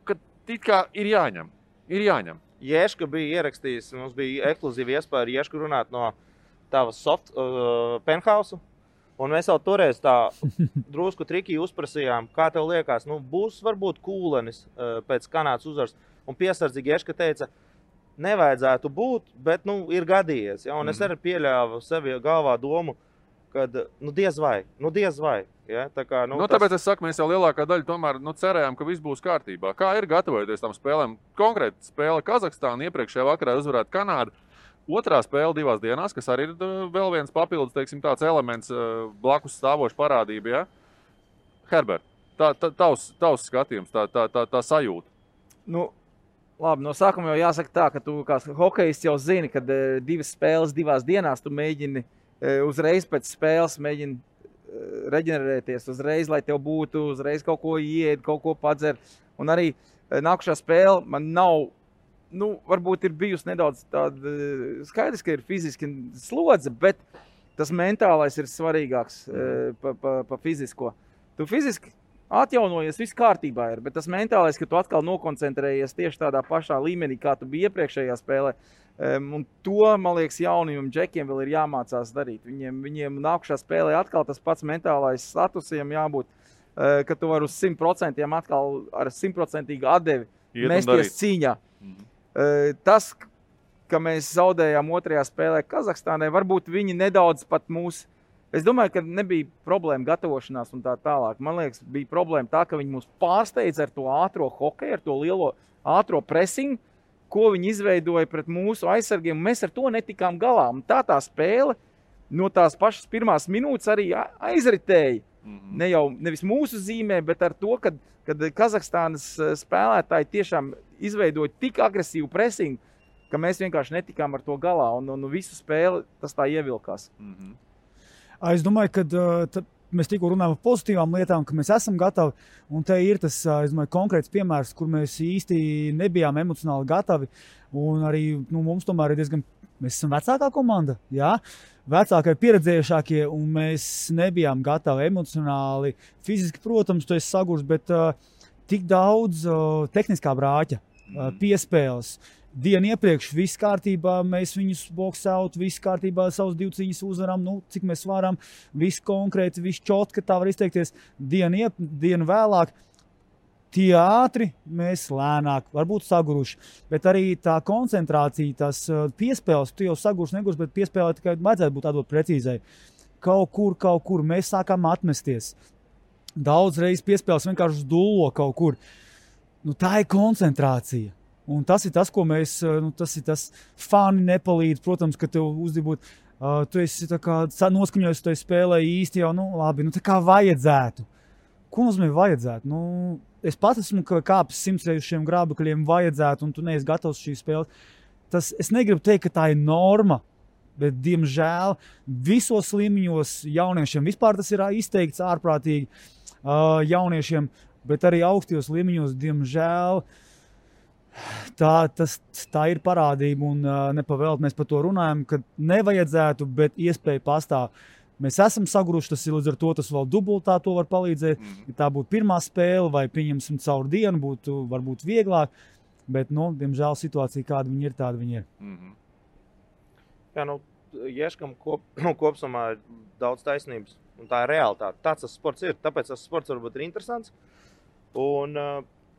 ka it kā ir jāņem. Ješka bija ierakstījis, mums bija ekskluzīva iespēja ar Ješku runāt no tavas penthouse. Un mēs jau toreiz tā drusku triki uzprasījām, kā tev liekas, būs varbūt kūlenis pēc Kanādas uzvaras. Un piesardzīgi Ješka teica, nevajadzētu būt, bet ir gadījies. Ja? Un es arī pieļāvu sevi galvā domu, kad diez vai. Ja? Tā kā, tāpēc es saku, mēs jau lielākā daļa tomēr cerējām, ka viss būs kārtībā. Kā ir gatavoties tam spēlēm? Konkrēti spēle Kazahstāna, iepriekšējā vakarā uzvarēt Kanādu. Otrā spēle 2 dienās, kas arī ir vēl viens papildus, teiksim, tāds elements blakus stāvoša parādība. Ja? Herbert, tavs skatījums, tā sajūta. Labi, no sākuma jau jāsaka tā, ka tu kā hokejists jau zini, ka 2 spēles 2 dienās tu mēģini uzreiz pēc spēles reģenerēties, uzreiz, lai tev būtu, uzreiz kaut ko ied, kaut ko padzer. Un arī nākušā spēle man nav, varbūt ir bijusi nedaudz tāda, skaidrs, ka ir fiziski slodze, bet tas mentālais ir svarīgāks pa fizisko. Tu fiziski atjaunojies, viss kārtībā ir, bet tas mentālais, ka tu atkal nokoncentrējies tieši tādā pašā līmenī, kā tu biji iepriekšējā spēlē. Un to, man liekas, jaunajiem džekiem vēl ir jāmācās darīt. Viņiem nākušā spēlē atkal tas pats mentālais statusiem jābūt, ka tu vari uz 100% atkal ar 100% atdevi mesties cīņā. Tas, ka mēs zaudējām otrajā spēlē Kazahstānai, varbūt viņi nedaudz pat mūs. Es domāju, ka nebija problēma gatavošanās un tā tālāk. Man liekas, bija problēma tā, ka viņi mūs pārsteidza ar to ātro hokeju, ar to lielo ātro presingu, ko viņi izveidoja pret mūsu aizsargiem. Mēs ar to netikām galā. Un tā spēle no tās pašas pirmās minūtes arī aizritēja. Nevis mūsu zīmē, bet ar to, kad Kazahstānas spēlētāji tiešām izveidoja tik agresīvu presingu, ka mēs vienkārši netikām ar to galā. Un visu spēli tas tā ievilkās. Es domāju, ka mēs tikko runājam par pozitīvām lietām, ka mēs esam gatavi. Un te ir tas, es domāju, konkrēts piemērs, kur mēs īsti nebijām emocionāli gatavi. Un arī mums tomēr ir diezgan, mēs esam vecākā komanda, jā? Vecākie, pieredzējušākie, un mēs nebijām gatavi emocionāli. Fiziski, protams, tu esi sagurs, bet tik daudz tehniskā brāķa, piespēles. Dienu iepriekš viss kārtībā, mēs viņus boxaut, viss kārtībā, savus 2 cīņas uzvaram, cik mēs varam, viss konkrēti, viss čotka, tā var izteikties. Dienu vēlāk, tie ātri, mēs lēnāk, varbūt saguruši, bet arī tā koncentrācija, tās piespēles, tu jau sagurs, negurs, bet piespēlē tikai vajadzētu būt atdot precīzai. Kaut kur mēs sākām atmesties. Daudz reizes piespēles vienkārši dullo kaut kur. Tā ir koncentrācija. Un tas ir tas, ko mēs, tas ir tas fani nepalīdz, protams, ka tev uzdibot, tu esi tā kā noskaņojis, tu spēlē īsti jau, labi, tā kā vajadzētu. Ko nozīmē vajadzētu? Es pats esmu kāpis 100 reiz šiem grābekļiem vajadzētu, un tu neesi gatavs šī spēle. Es negribu teikt, ka tā ir norma, bet, diemžēl, visos līmeņos jauniešiem vispār tas ir izteikts ārprātīgi jauniešiem, bet arī augstajos līmeņos, diemžēl, tā ir parādība, un nepavēlt mēs par to runājam, ka nevajadzētu, bet iespēja pastāv. Mēs esam saguruši, tas ir līdz ar to, tas vēl dubultā to var palīdzēt. Ja tā būtu pirmā spēle, vai pieņemsim caur dienu, būtu varbūt vieglāk, bet, diemžēl situācija, kāda viņi ir, tāda viņi ir. Jā, Ješkam kopsumā ir daudz taisnības, un tā ir realitāte. Tāds tas sports ir, tāpēc tas sports varbūt ir interesants. Un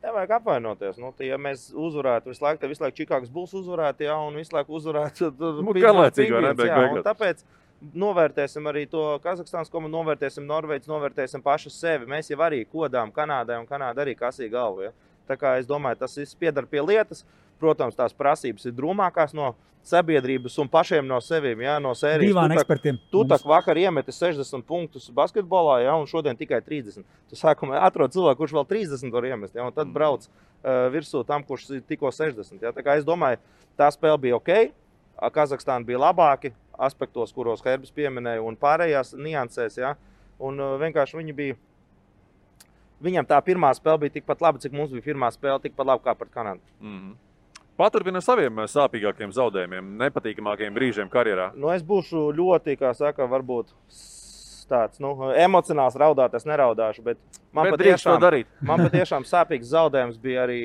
nevajag apvainoties. Ja mēs uzvarētu visu laiku, Čikāgas Bulls uzvarētu, un visu laiku uzvarētu un tāpēc novērtēsim arī to Kazahstānas komandu, novērtēsim Norvēģis, novērtēsim pašu sevi. Mēs jau arī kodām Kanādai, un Kanāda arī kasīja galvu. Ja? Tā kā es domāju, tas viss piedar pie lietas. Protams, tās prasības ir drūmākās no sabiedrības un pašiem no sevīm, ja? No sērijas. Divām ekspertiem. Tu tak vakar iemeti 60 punktus basketbolā, ja? Un šodien tikai 30. Tu sākumā atrod cilvēku, kurš vēl 30 var iemest, ja? Un tad brauc virsū tam, kurš tikko 60. Ja? Tā kā es domāju, tā spēle bija ok. Kazahstāna bija labāki aspektos, kuros Herbis pieminēja, un pārējās niansēs. Ja? Un vienkārši viņam tā pirmā spēle bija tikpat laba, cik mums bija pirmā spēle, tikpat laba kā pret Kanādu. Paturpina saviem sāpīgākiem zaudējumiem, nepatīkamākiem brīžiem karjerā. Es būšu ļoti, kā saka, varbūt tāds, emocionāls raudāt, es neraudāšu, bet man patiešām sāpīgs zaudējums bija arī,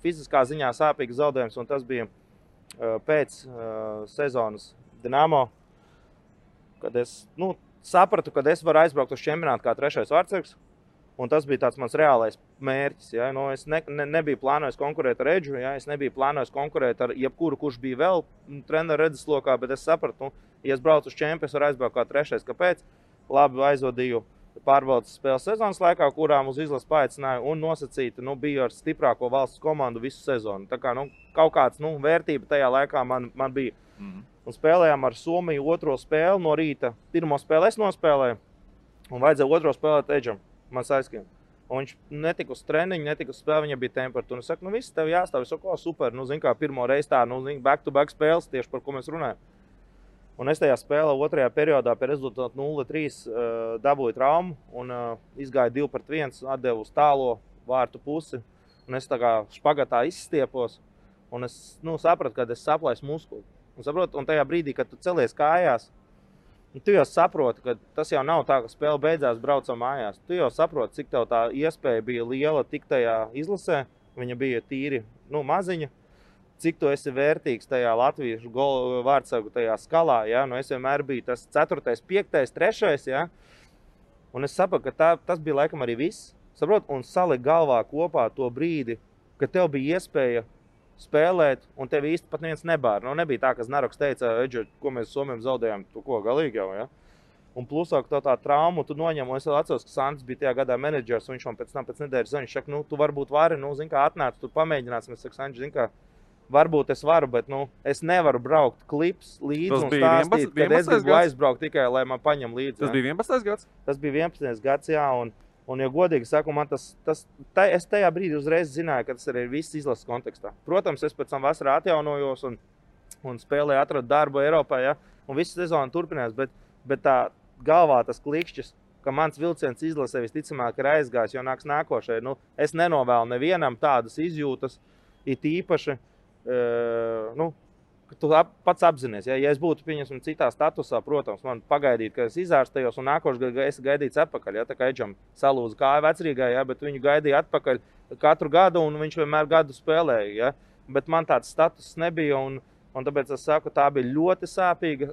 fiziskā ziņā sāpīgs zaudējums, un tas bija pēc sezonas Dinamo, kad es, sapratu, ka es varu aizbraukt uz čempionātu kā 3. vārtsargs. Un tas bija tāds mans reālais mērķis. Ja? Nu, es nebiju plānojis konkurēt ar Edžu, ja? Es nebiju plānojis konkurēt ar jebkuru, kurš bija vēl treneru redzeslokā, bet es sapratu, ja es braucu uz čempionu, es varu aizbraukt kā 3. Kāpēc? Labi aizvadīju pārbaudas spēles sezonas laikā, kurām uz izlases paaicināju un nosacīti, biju ar stiprāko valsts komandu visu sezonu. Tā kā, kaut kāds, vērtība tajā laikā man bija. Un spēlējām ar Somiju 2. spēli no rīta. 1. spēli es nospēlēju un vajadzēja 2. spēlēt Edžam. Man aizskiem. Un viņš netika uz treniņu, netika uz spēli, viņam bija temperatūra. Es saku, viss tev jāstāv, es saku, super, zin kā, pirmo reizi tā, back-to-back spēles, tieši par ko mēs runājam. Un es tajā spēlē 2. periodā pie rezultātu 0-3 dabūju traumu un izgāju 2-1, atdevu uz tālo vārtu pusi. Un es tā kā špagatā izstiepos un es sapratu, ka es saplaisu muskuli. Un tajā brīdī, kad tu celies kājās, tu jau saproti, ka tas jau nav tā, ka spēle beidzās, braucam mājās. Tu jau saproti, cik tev tā iespēja bija liela tik tajā izlasē. Viņa bija tīri maziņa. Cik tu esi vērtīgs tajā latviešu vārdsargu tajā skalā. Ja? Es vienmēr biju tas 4., 5., 3. Ja? Un es sapratu, ka tas bija laikam arī viss. Saprot? Un salikt galvā kopā to brīdi, ka tev bija iespēja spēlēt, un tev īsti pat neviens nebāra. Nebija tā, ka Znaroks teica, Edži, ko mēs Somiem zaudējām, tu ko, galīgi jau, ja? Un plusāk tā traumu tu noņem, un es vēl atceros, ka Sandis bija tajā gadā menedžers, un viņš man pēc nedēļas zina, viņš saka, tu varbūt vari, zin kā, atnāc, tu pamēģināsim, es saku, Sandis, zin kā, varbūt es varu, bet, es nevaru braukt klips līdzi un stāstīt, kad es gribu aizbraukt tikai, lai man paņem līdzi. Tas bija 11. gads? Tas bija 11. gads, jā, un ja godīgi saku, man es tajā brīdī uzreiz zināju, ka tas arī ir viss izlases kontekstā. Protams, es pēc tam vasarā atjaunojos un spēlēju, atradu darbu Eiropā, ja, un visu sezonu turpinājās, bet tā galvā tas klikšķis, ka mans vilciens izlasē visticamāk ir aizgājis, jo nāks nākošai. Es nenovēlu nevienam tādas izjūtas, it īpaši, tu pats apzinies, ja es būtu pieņemsim citā statusā, protams, man pagaidīt, ka es izārstējos un nākošu gadu es gaidīts atpakaļ, ja, tā kā Edžam salūza kāja vecrīgā, ja, bet viņu gaidīja atpakaļ katru gadu un viņš vienmēr gadu spēlēja, ja, bet man tāds status nebija un tāpēc es saku, tā bija ļoti sāpīga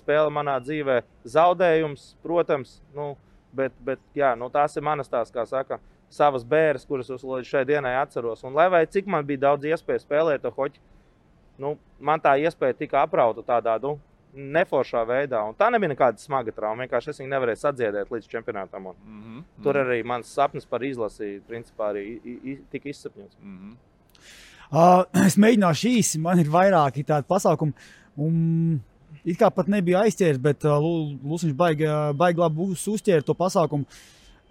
spēle manā dzīvē, zaudējums, protams, bet jā, tās ir manas tās, kā saka, savas bēres, kuras es līdz šai dienai atceros, un lai vai cik man bija daudz iespēju spēlēt to hoķi, man tā iespēja tika aprauta tādā, neforšā veidā. Un tā nebija nekāda smaga trauma. Vienkārši es viņu nevarēju sadziedēt līdz čempionātam. Tur arī mans sapnis par izlasi, principā, arī tika izsapņots. Es mēģināšu īsi. Man ir vairāki tādi pasākumi. It kā pat nebija aizķēris, bet Lusiņš baigi labi uzķēra to pasākumu.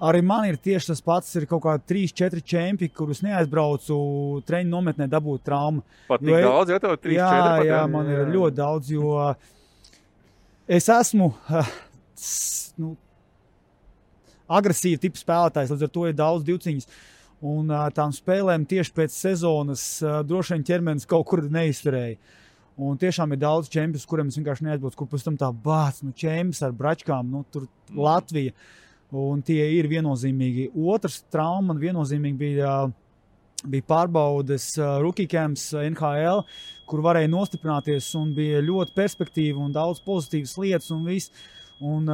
Arī man ir tieši tas pats, ir kaut kā 3-4 čempi, kurus neaizbraucu treniņu nometnē dabūt traumu. Pat tik daudz, ja tev 3-4? Jā, man ir ļoti daudz, jo es esmu agresīva tipa spēlētājs, līdz ar to ir daudz divciņas. Un tām spēlēm tieši pēc sezonas droši vien ķermenis kaut kur neizturēja. Un tiešām ir daudz čempus, kuriem es vienkārši neaizbraucu, kur pēc tam tā bāc, čempus ar bračkām, tur Latvija. Un tie ir viennozīmīgi. Otrs trauma man viennozīmīgi bija pārbaudes rookie camps NHL, kur varēja nostiprināties un bija ļoti perspektīva un daudz pozitīvas lietas un viss. Un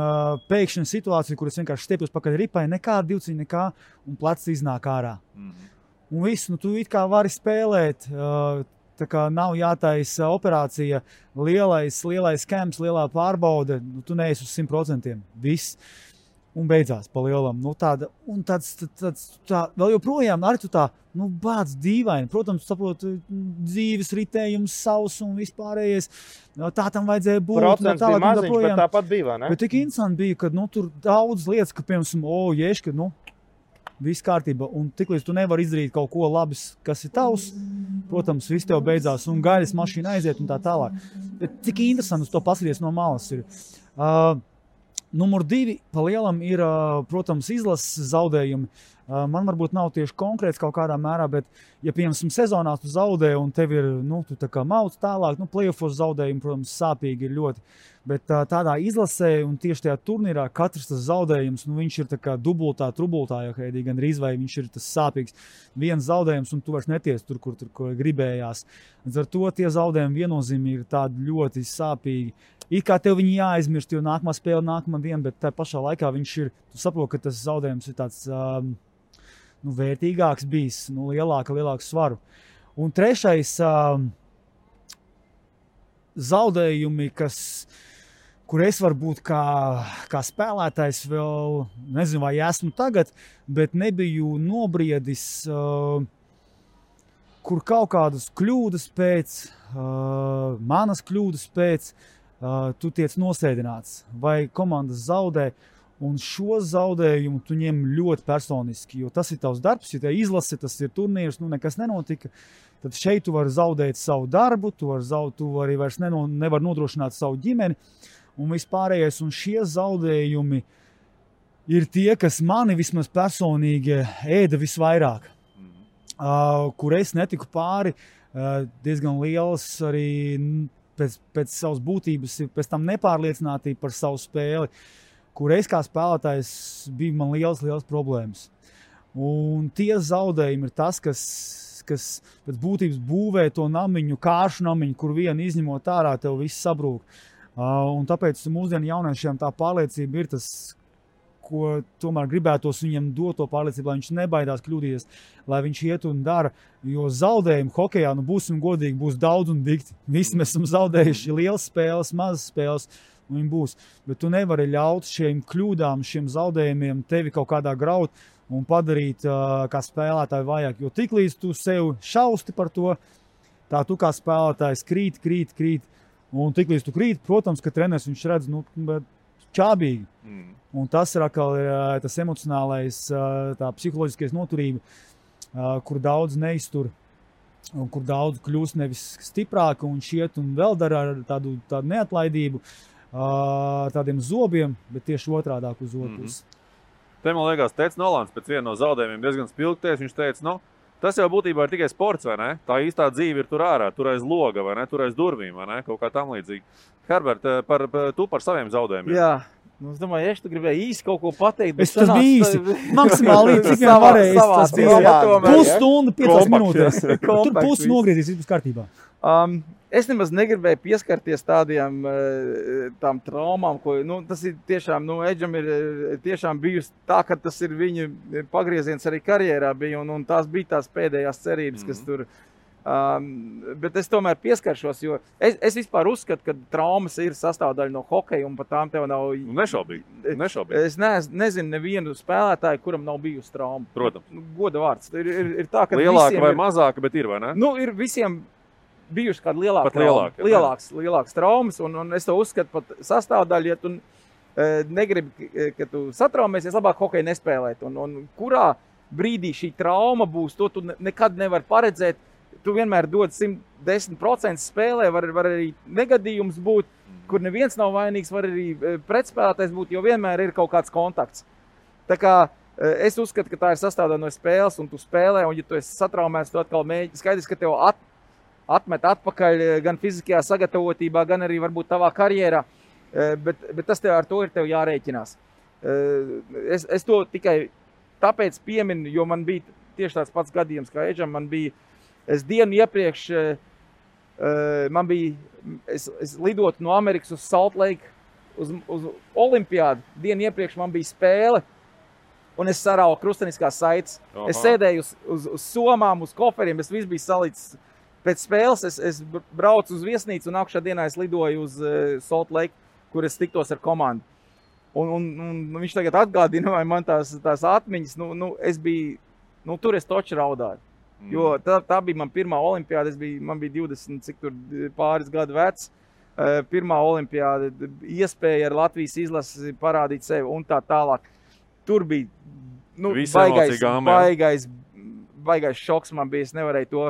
pēkšņa situācija, kur es vienkārši stiepjos pakaļ ripai, nekāda divciņa, nekā, un plecs iznāk ārā. Un viss, tu it kā vari spēlēt, tā kā nav jātaisa operācija, lielais camps, lielā pārbaude, tu neesi uz 100%. Viss. Un beidzās pa lielam. Tā, vēl joprojām arī tu tā, bāc dīvaini. Protams, saprot, dzīves ritējums, savs un vispārējais. Tā tam vajadzēja būt. Procents bija maziņš, bet tāpat bija, ne? Bet tik interesanti bija, ka, tur daudz lietas, ka, piemēram, ješka, viss kārtība. Un tiklīdz tu nevari izdarīt kaut ko labs, kas ir tavs, protams, viss tev beidzās un gaļas mašīna aiziet un tā tālāk. Bet cik interesanti uz to paskatīties no malas ir. Numur 2 pa lielam ir, protams, izlases zaudējumi. Man varbūt nav tieši konkrēts kaut kādā mērā, bet, ja, piemēram, sezonā tu zaudē un tev ir, tu tā kā mauc tālāk, playoffos zaudējumi, protams, sāpīgi ir ļoti. Bet tādā izlasē un tieši tajā turnīrā katrs tas zaudējums, viņš ir tā kā dubultā, trubultā, ja gan rīz vai viņš ir tas sāpīgs. Viens zaudējums un tu vairs neties tur, kur gribējās. Līdz ar to tie zaudējumi viennozīmīgi ir tādi ļoti sāpīgi. it kā tev viņi jāaizmirst, jo nākamā spēle nākamā diena, bet tā pašā laikā viņš ir, tu saproti, ka tas zaudējums ir tāds vērtīgāks bijis, lielāku svaru. Un trešais zaudējumi, kur es varu būt kā spēlētājs vēl, nezinu, vai esmu tagad, bet nebiju nobriedis, kur kaut kādas kļūdas pēc, manas kļūdas pēc, tu tiec nosēdināts, vai komandas zaudē, un šo zaudējumu tu ņem ļoti personiski, jo tas ir tavs darbs, ja te izlase, tas ir turnīrs, nekas nenotika, tad šeit tu vari zaudēt savu darbu, tu vari vairs nevar nodrošināt savu ģimeni, un vispārējais, un šie zaudējumi ir tie, kas mani vismaz personīgi ēda visvairāk, kur es netiku pāri, diezgan liels arī pēc savas būtības, pēc tam nepārliecinātība par savu spēli, kur es kā spēlētājs bija man liels problēmas. Un tie zaudējumi ir tas, kas pēc būtības būvē to namiņu, kāršu namiņu, kur vienu izņemot ārā, tev viss sabrūk. Un tāpēc mūsdienu jauniešiem tā pārliecība ir tas, ko tomēr gribētos viņam dot to pārliecību, lai viņš nebaidās kļūdīties, lai viņš iet un dara, jo zaudējumi hokejā, būsim godīgi, būs daudz un dikti. Visi mēs esam zaudējuši lielas spēles, mazas spēles, un viņi būs. Bet tu nevari ļaut šiem kļūdām, šiem zaudējumiem tevi kaut kādā graut un padarīt kā spēlētāju vajag, jo tiklīdz tu sev šausti par to, tā tu kā spēlētājs krīt, un tiklīdz tu krīt, protams, ka treneris viņš redz, čābīgi. Un tas ir atkal tas emocionālais, tā psiholoģiskais noturība, kur daudz neiztur, un kur daudz kļūst nevis stiprāki un šiet un vēl dara ar tādu neatlaidību, tādiem zobiem, bet tieši otrādāk uz otras. Te, man liekas, teica Nolans pēc viena no zaudējumiem diezgan spilgties, viņš teica, tas jau būtībā ir tikai sports, vai ne? Tā īstā dzīve ir tur ārā, tur aiz loga, vai ne? Tur aiz durvīm, vai ne? Kaut kā tam līdzīgi. Herbert, tu par saviem zaudējumiem. Jā. Es domāju, ja tu gribēji īsti kaut ko pateikt, bet tas bija īsti. Maksimāli līdz, cik vien varēja. Tas bija pusstunda, 5 minūtēs. Tur pusi nogriezīs, viss būs kārtībā. Es nemaz negribēju pieskarties tām traumām, ko, tas ir tiešām, Edžam ir tiešām bijusi tā, ka tas ir viņa pagrieziens arī karjerā bija, un tās bija tās pēdējās cerības, kas tur. Bet es tomēr pieskaršos, jo es vispār uzskatu, ka traumas ir sastāvdaļa no hokeja, un pat tām tev nav... Nešaubīgi. Es nezinu nevienu spēlētāju, kuram nav bijusi trauma. Protams. Goda vārds. Ir tā, ka lielāka vai mazāka, bet ir, vai ne? Ir visiem bijuši kāda lielākas traumas, un es to uzskatu pat sastāvdaļu, ja tu negribi, ka tu satraumēsies, labāk hokeju nespēlēt. Un kurā brīdī šī trauma būs, to tu nekad nevar paredzēt. Tu vienmēr dod 110% spēlē, var arī negadījums būt, kur neviens nav vainīgs, var arī pretspēlētājs būt, jo vienmēr ir kaut kāds kontakts. Tā kā es uzskatu, ka tā ir sastāvdaļa no spēles, un tu spēlē, un ja tu esi satraumēts, tu atkal mēģini. Skaidrs, ka tev atmet atpakaļ gan fiziskajā sagatavotībā, gan arī varbūt tavā karjerā, bet tas ar to ir tev jārēķinās. Es to tikai tāpēc pieminu, jo man bija tieši tāds pats gadījums kā Edžam, es dienu iepriekš, es lidotu no Amerikas uz Salt Lake, uz Olimpiādu. Dienu iepriekš man bija spēle, un es sarauju krusteniskās saites. Es sēdēju uz somām, uz koferiem, es viss bija salicis. Pēc spēles es braucu uz viesnīcu, un nākušā dienā es lidoju uz Salt Lake, kur es tiktos ar komandu. Un viņš tagad atgādina, vai man tās atmiņas, es biju, tur es toči raudāju. Jo tā bija man pirmā olimpiāda, man bija 20, cik tur pāris gadu vecs. Pirmā olimpiāda, iespēja ar Latvijas izlasi parādīt sevi un tā tālāk. Tur bija baigais šoks man bija, es nevarēju to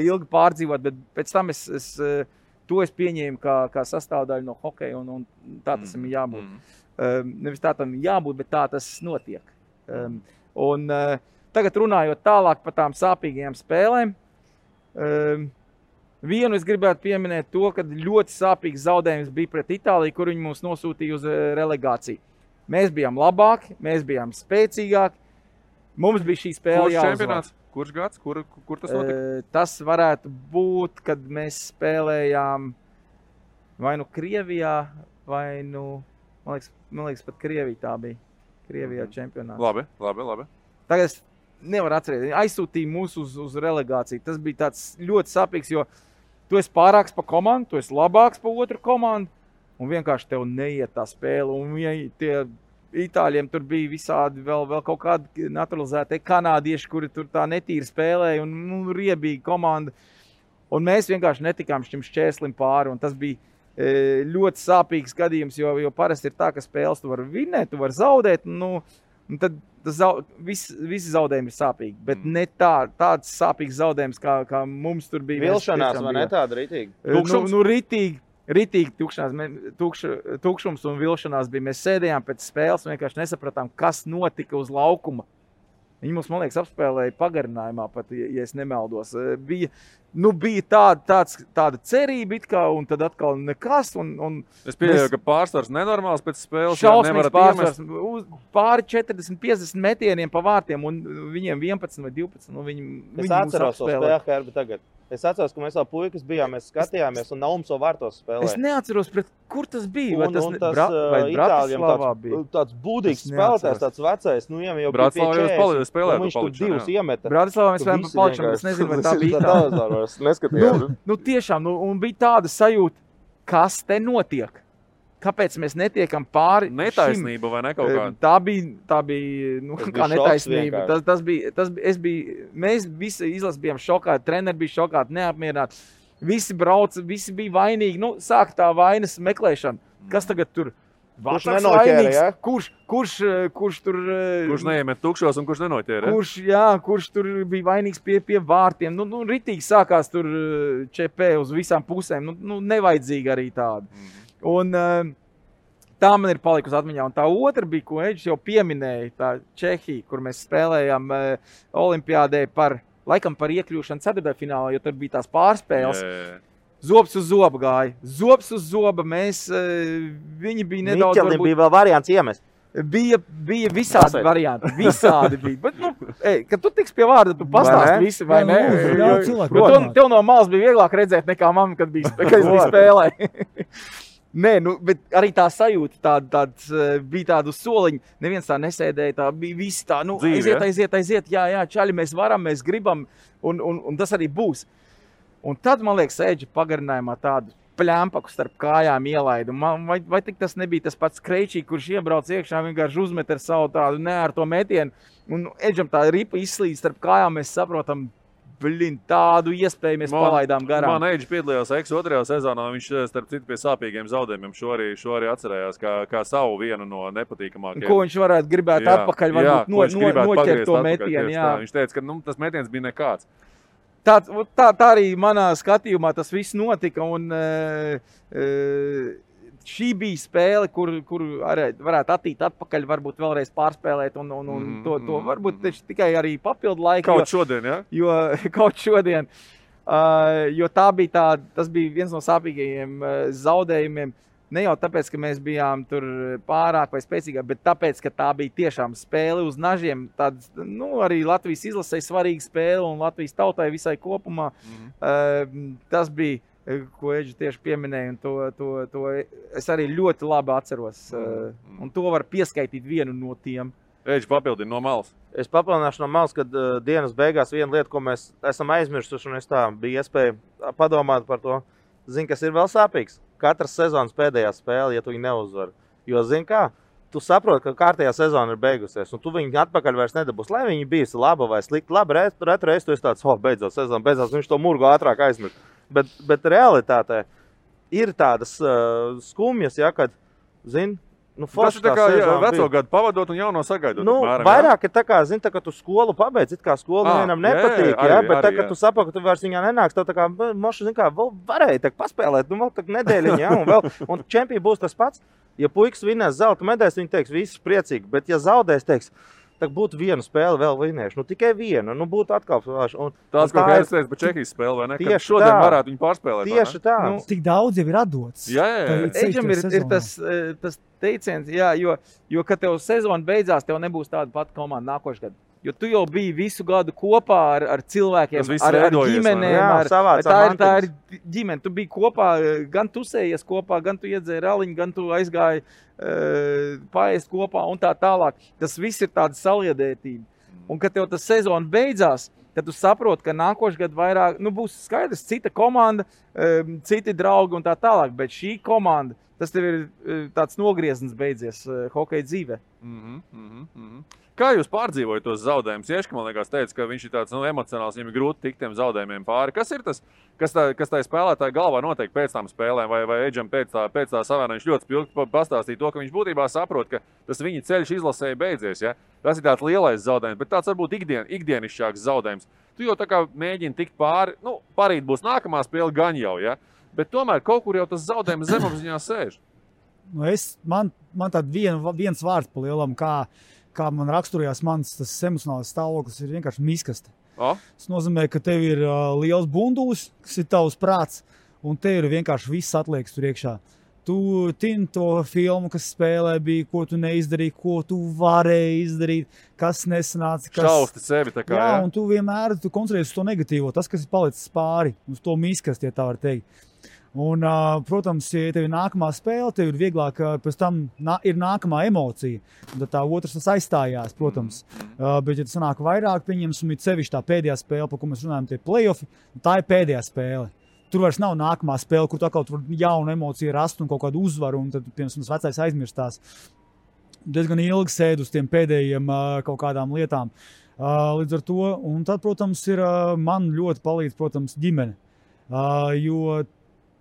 ilgi pārdzīvot, bet pēc tam to es pieņēmu kā sastāvdaļu no hokeja, un tā tas ir jābūt. Nevis tā tam jābūt, bet tā tas notiek. Tagad runājot tālāk par tām sāpīgajām spēlēm, vienu es gribētu pieminēt to, ka ļoti sāpīgs zaudējums bija pret Itāliju, kur viņi mūs nosūtīja uz relegāciju. Mēs bijām labāki, mēs bijām spēcīgāki, mums bija šī spēle jāuzvar. Kurš gads? Kur tas notika? Tas varētu būt, kad mēs spēlējām vai nu Krievijā, vai nu, man liekas pat Krievija tā bija. Krievijā čempionāts. Labi. Tagad es nevaru atcerēties. Aizsūtīja mūs uz relegāciju. Tas bija tāds ļoti sapīgs, jo tu esi pārāks pa komandu, tu esi labāks pa otru komandu, un vienkārši tev neiet tā spēle. Un tie Itāļiem tur bija visādi vēl kaut kādi naturalizētie kanādieši, kuri tur tā netīri spēlēja un riebīga komanda. Un mēs vienkārši netikām šim šķēslim pāri, un tas bija ļoti sāpīgs gadījums, jo parasti ir tā, ka spēles tu vari vinēt, tu vari zaudēt, un tad visi zaudējumi ir sāpīgi, bet ne tāds sāpīgs zaudējums, kā mums tur bija. Vilšanās, vai ne tāda ritīgi? Ritīgi tukšums un vilšanās bija. Mēs sēdējām pēc spēles un vienkārši nesapratām, kas notika uz laukuma. Viņi mums, man liekas, apspēlēja pagarinājumā pat, ja es nemaldos. Bija tāda cerība it kā, un tad atkal nekas. Es pieļauju, ka pārsvars nenormāls pēc spēles. Šausmīgs pārsvars. Pāri 40-50 metieniem pa vārtiem, un viņiem 11 vai 12. Es atceros to spēli, Herbi, tagad. Es atceros, ka mēs vēl puikas bijām, mēs skatījāmies, un Naums vēl vārtos spēlē. Es neatceros, kur tas bija. Vai tas Itāļiem tāds būdīgs spēlētājs, tāds vecais, jau Bratislavā jau spēlēja. Viņš tur divus iemeta. Bratislavā mēs spēlējām pa palikšanu, es nezinu, vai tā bija tā. Neskatījām. Tiešām, un bija tāda sajūta, kas te notiek. Kāpēc mēs netiekam pāri netaisnība vai ne kaut kāda? Tā bija kā netaisnība. Mēs visi izlases bijām šokāti, treneri bija šokāti, neapmierināti. Visi brauca, visi bija vainīgi. Sāk tā vainas meklēšana. Kas tagad tur? Kurš nenoķēra, ja? Kurš tur... Kurš neiemet tukšos un kurš nenoķēra? Kurš tur bija vainīgs pie vārtiem. Ritīgi sākās tur ČP uz visām pusēm. Nevajadzīgi arī tādu. Un tā man ir palikusi atmiņā. Un tā otra bija, ko Eģis jau pieminēja, tā Čehija, kur mēs spēlējām olimpiādē laikam par iekļūšanu ceturtdaļfinālā, jo tur bija tās pārspēles. Zobs uz zoba gāja. Zobs uz zoba. Viņi bija nedaudz... Miķelim bija vēl variants iemest. Bija visādi varianti. Visādi bija. Bet, kad tu tiks pie vārda, tu pastāsti visi, vai ne? Tev no malas bija vieglāk redzēt nekā man, kad es biju spēlē. Nē, bet arī tā sajūta bija tāda uz soliņa. Neviens tā nesēdēja, tā bija visi tā, aiziet, jā, čaļi, mēs varam, mēs gribam, un tas arī būs. Un tad, man liekas, Eģi pagarinājumā tādu pļampaku starp kājām ielaidu. Vai tik tas nebija tas pats Kreičī, kurš iebrauc iekšā, vienkārši uzmet ar savu tādu neārto metienu, un Eģam tā ripa izslīd starp kājām, mēs saprotam, tādu iespēju mēs palaidām garām. Man Eģis piedalījās otrajā sezonā, viņš starp citu pie sāpīgiem zaudējumiem šo arī atcerējās kā savu vienu no nepatīkamākajiem. Ko viņš varētu gribēt atpakaļ, varbūt noķert to metienu. Viņš teica, ka tas metiens bija nekāds. Tā arī manā skatījumā tas viss notika, un šī bija spēle, kur varētu attīt atpakaļ, varbūt vēlreiz pārspēlēt, un to varbūt tikai arī papildu laiku. Kaut šodien, ja? Kaut šodien. Jo tas bija viens no sāpīgajiem zaudējumiem. Ne jau tāpēc, ka mēs bijām tur pārāk vai spēcīgāk, bet tāpēc, ka tā bija tiešām spēle uz nažiem. Arī Latvijas izlasē svarīga spēle un Latvijas tautai visai kopumā. Tas bija, ko Eģi tieši pieminēja, un to es arī ļoti labi atceros. Un to var pieskaitīt vienu no tiem. Eģi papildina no malas. Es papildināšu no malas, kad dienas beigās viena lieta, ko mēs esam aizmirsuši, un es tā bija iespēja padomāt par to. Zini, kas ir vēl sāpīgs? Katras sezonas pēdējā spēle, ja tu viņu neuzvari. Jo, zini kā, tu saproti, ka kārtējā sezona ir beigusies, un tu viņu atpakaļ vairs nedabūsi. Lai viņi bijusi laba vai slikta, labi, reiz tu esi tāds, beidzot sezona, beidzot, viņš to murgu ātrāk aizmirst. Bet realitātē ir tādas skumjas, ja, kad, zini, tas ir tā kā veco gadu pavadot un jauno sagaidot. Vairāk ir tā kā, zini, tā kā tu skolu pabeidz, it kā skolu nevienam nepatīk, bet tā, ka tu saproti, ka tu vairs viņā nenāks, tev tā kā, moši, zini kā, vēl varēja tā paspēlēt, vēl tā nedēļiņa, ja, un čempija būs tas pats. Ja puikas vinnēs zelta medaļas, viņi teiks, viss priecīgi, bet ja zaudēs, teiks, tā būtu vienu spēli vēl vinnējuši, tikai vienu, būtu atkal. Tāds, ko es teicu par Čehijas spēli, vai ne? Kad šodien varētu viņu pārspēlēt. Tieši tā. Tik daudz jau ir atdots. Jā. Eģim ir tas teiciens, jā, jo, kad tev sezona beidzās, tev nebūs tāda pati komanda nākošais gadu. Jo tu jau biji visu gadu kopā ar cilvēkiem, Tas viss ar veidojies, ģimenēm. Jā, savācām Tā ir ģimene. Tu biji kopā, gan tu sējies kopā, gan tu iedzēri raliņu, gan tu aizgāji paēst kopā un tā tālāk. Tas viss ir tāda saliedētība. Un, kad tev tas sezona beidzās, tad tu saproti, ka nākošais gads vairāk, būs skaidrs, cita komanda, citi draugi un tā tālāk. Bet šī komanda, tas tev ir tāds nogrieznis beidzies hokeja dzīvē. Kā jūs pārdzīvojat tos zaudējumus? Ieška, man liekas, teica, ka viņš ir tāds emocionāls, viņam ir grūti tikt tiem zaudējumiem pāri. Kas ir tas, kas tā spēlētāja galvā notiek pēc tām spēlēm, vai Edžam pēc tā savēna viņš ļoti spilgti pastāstīja to, ka viņš būtībā saprot, ka tas viņa ceļš izlasēja beidzies, ja? Tas ir tāds lielais zaudējums, bet tāds varbūt ikdienišķāks zaudējums. Tu jau tā kā mēģini tikt pāri, parīt būs nākamā spēle gan jau, ja? Bet tomēr kaut kur jau tas zaudējums zemapziņā sēž. Man tād viens vārds pa lielam, kā man raksturojās mans tas emocionāls stāvoklis, ir vienkārši miskaste. Tas nozīmē, ka tev ir liels bundulis, kas ir tavs prāts, un tev ir vienkārši viss atliekas tur iekšā. Tu tini to filmu, kas spēlē bija, ko tu neizdarīji, ko tu varēji izdarīt, kas nesanāca. Šausti sevi tā kā, jā? Un tu vienmēr koncentrējies uz to negatīvo, tas, kas ir palicis pāri, uz to miskasti, ja tā var teikt. Un, protams, ja tev ir nākamā spēle, tev ir vieglāk, pēc tam ir nākamā emocija. Un tad tā otrs tas aizstājās, protams. Bet, ja tas sanāk vairāk, pieņemsim, ir sevišķi tā pēdējā spēle, par ko mēs runājam, tie play-offi, tā ir pēdējā spēle. Tur vairs nav nākamā spēle, kur tu atkal tur jaunu emociju rast un kaut kādu uzvaru, un tad, piemēram, tas vecais aizmirstās. Diezgan ilgi sēd uz tiem pēdējiem kaut kādām lietām. Līdz ar to, un tad, protams, man ļoti palīdz, protams, ģimene. Jo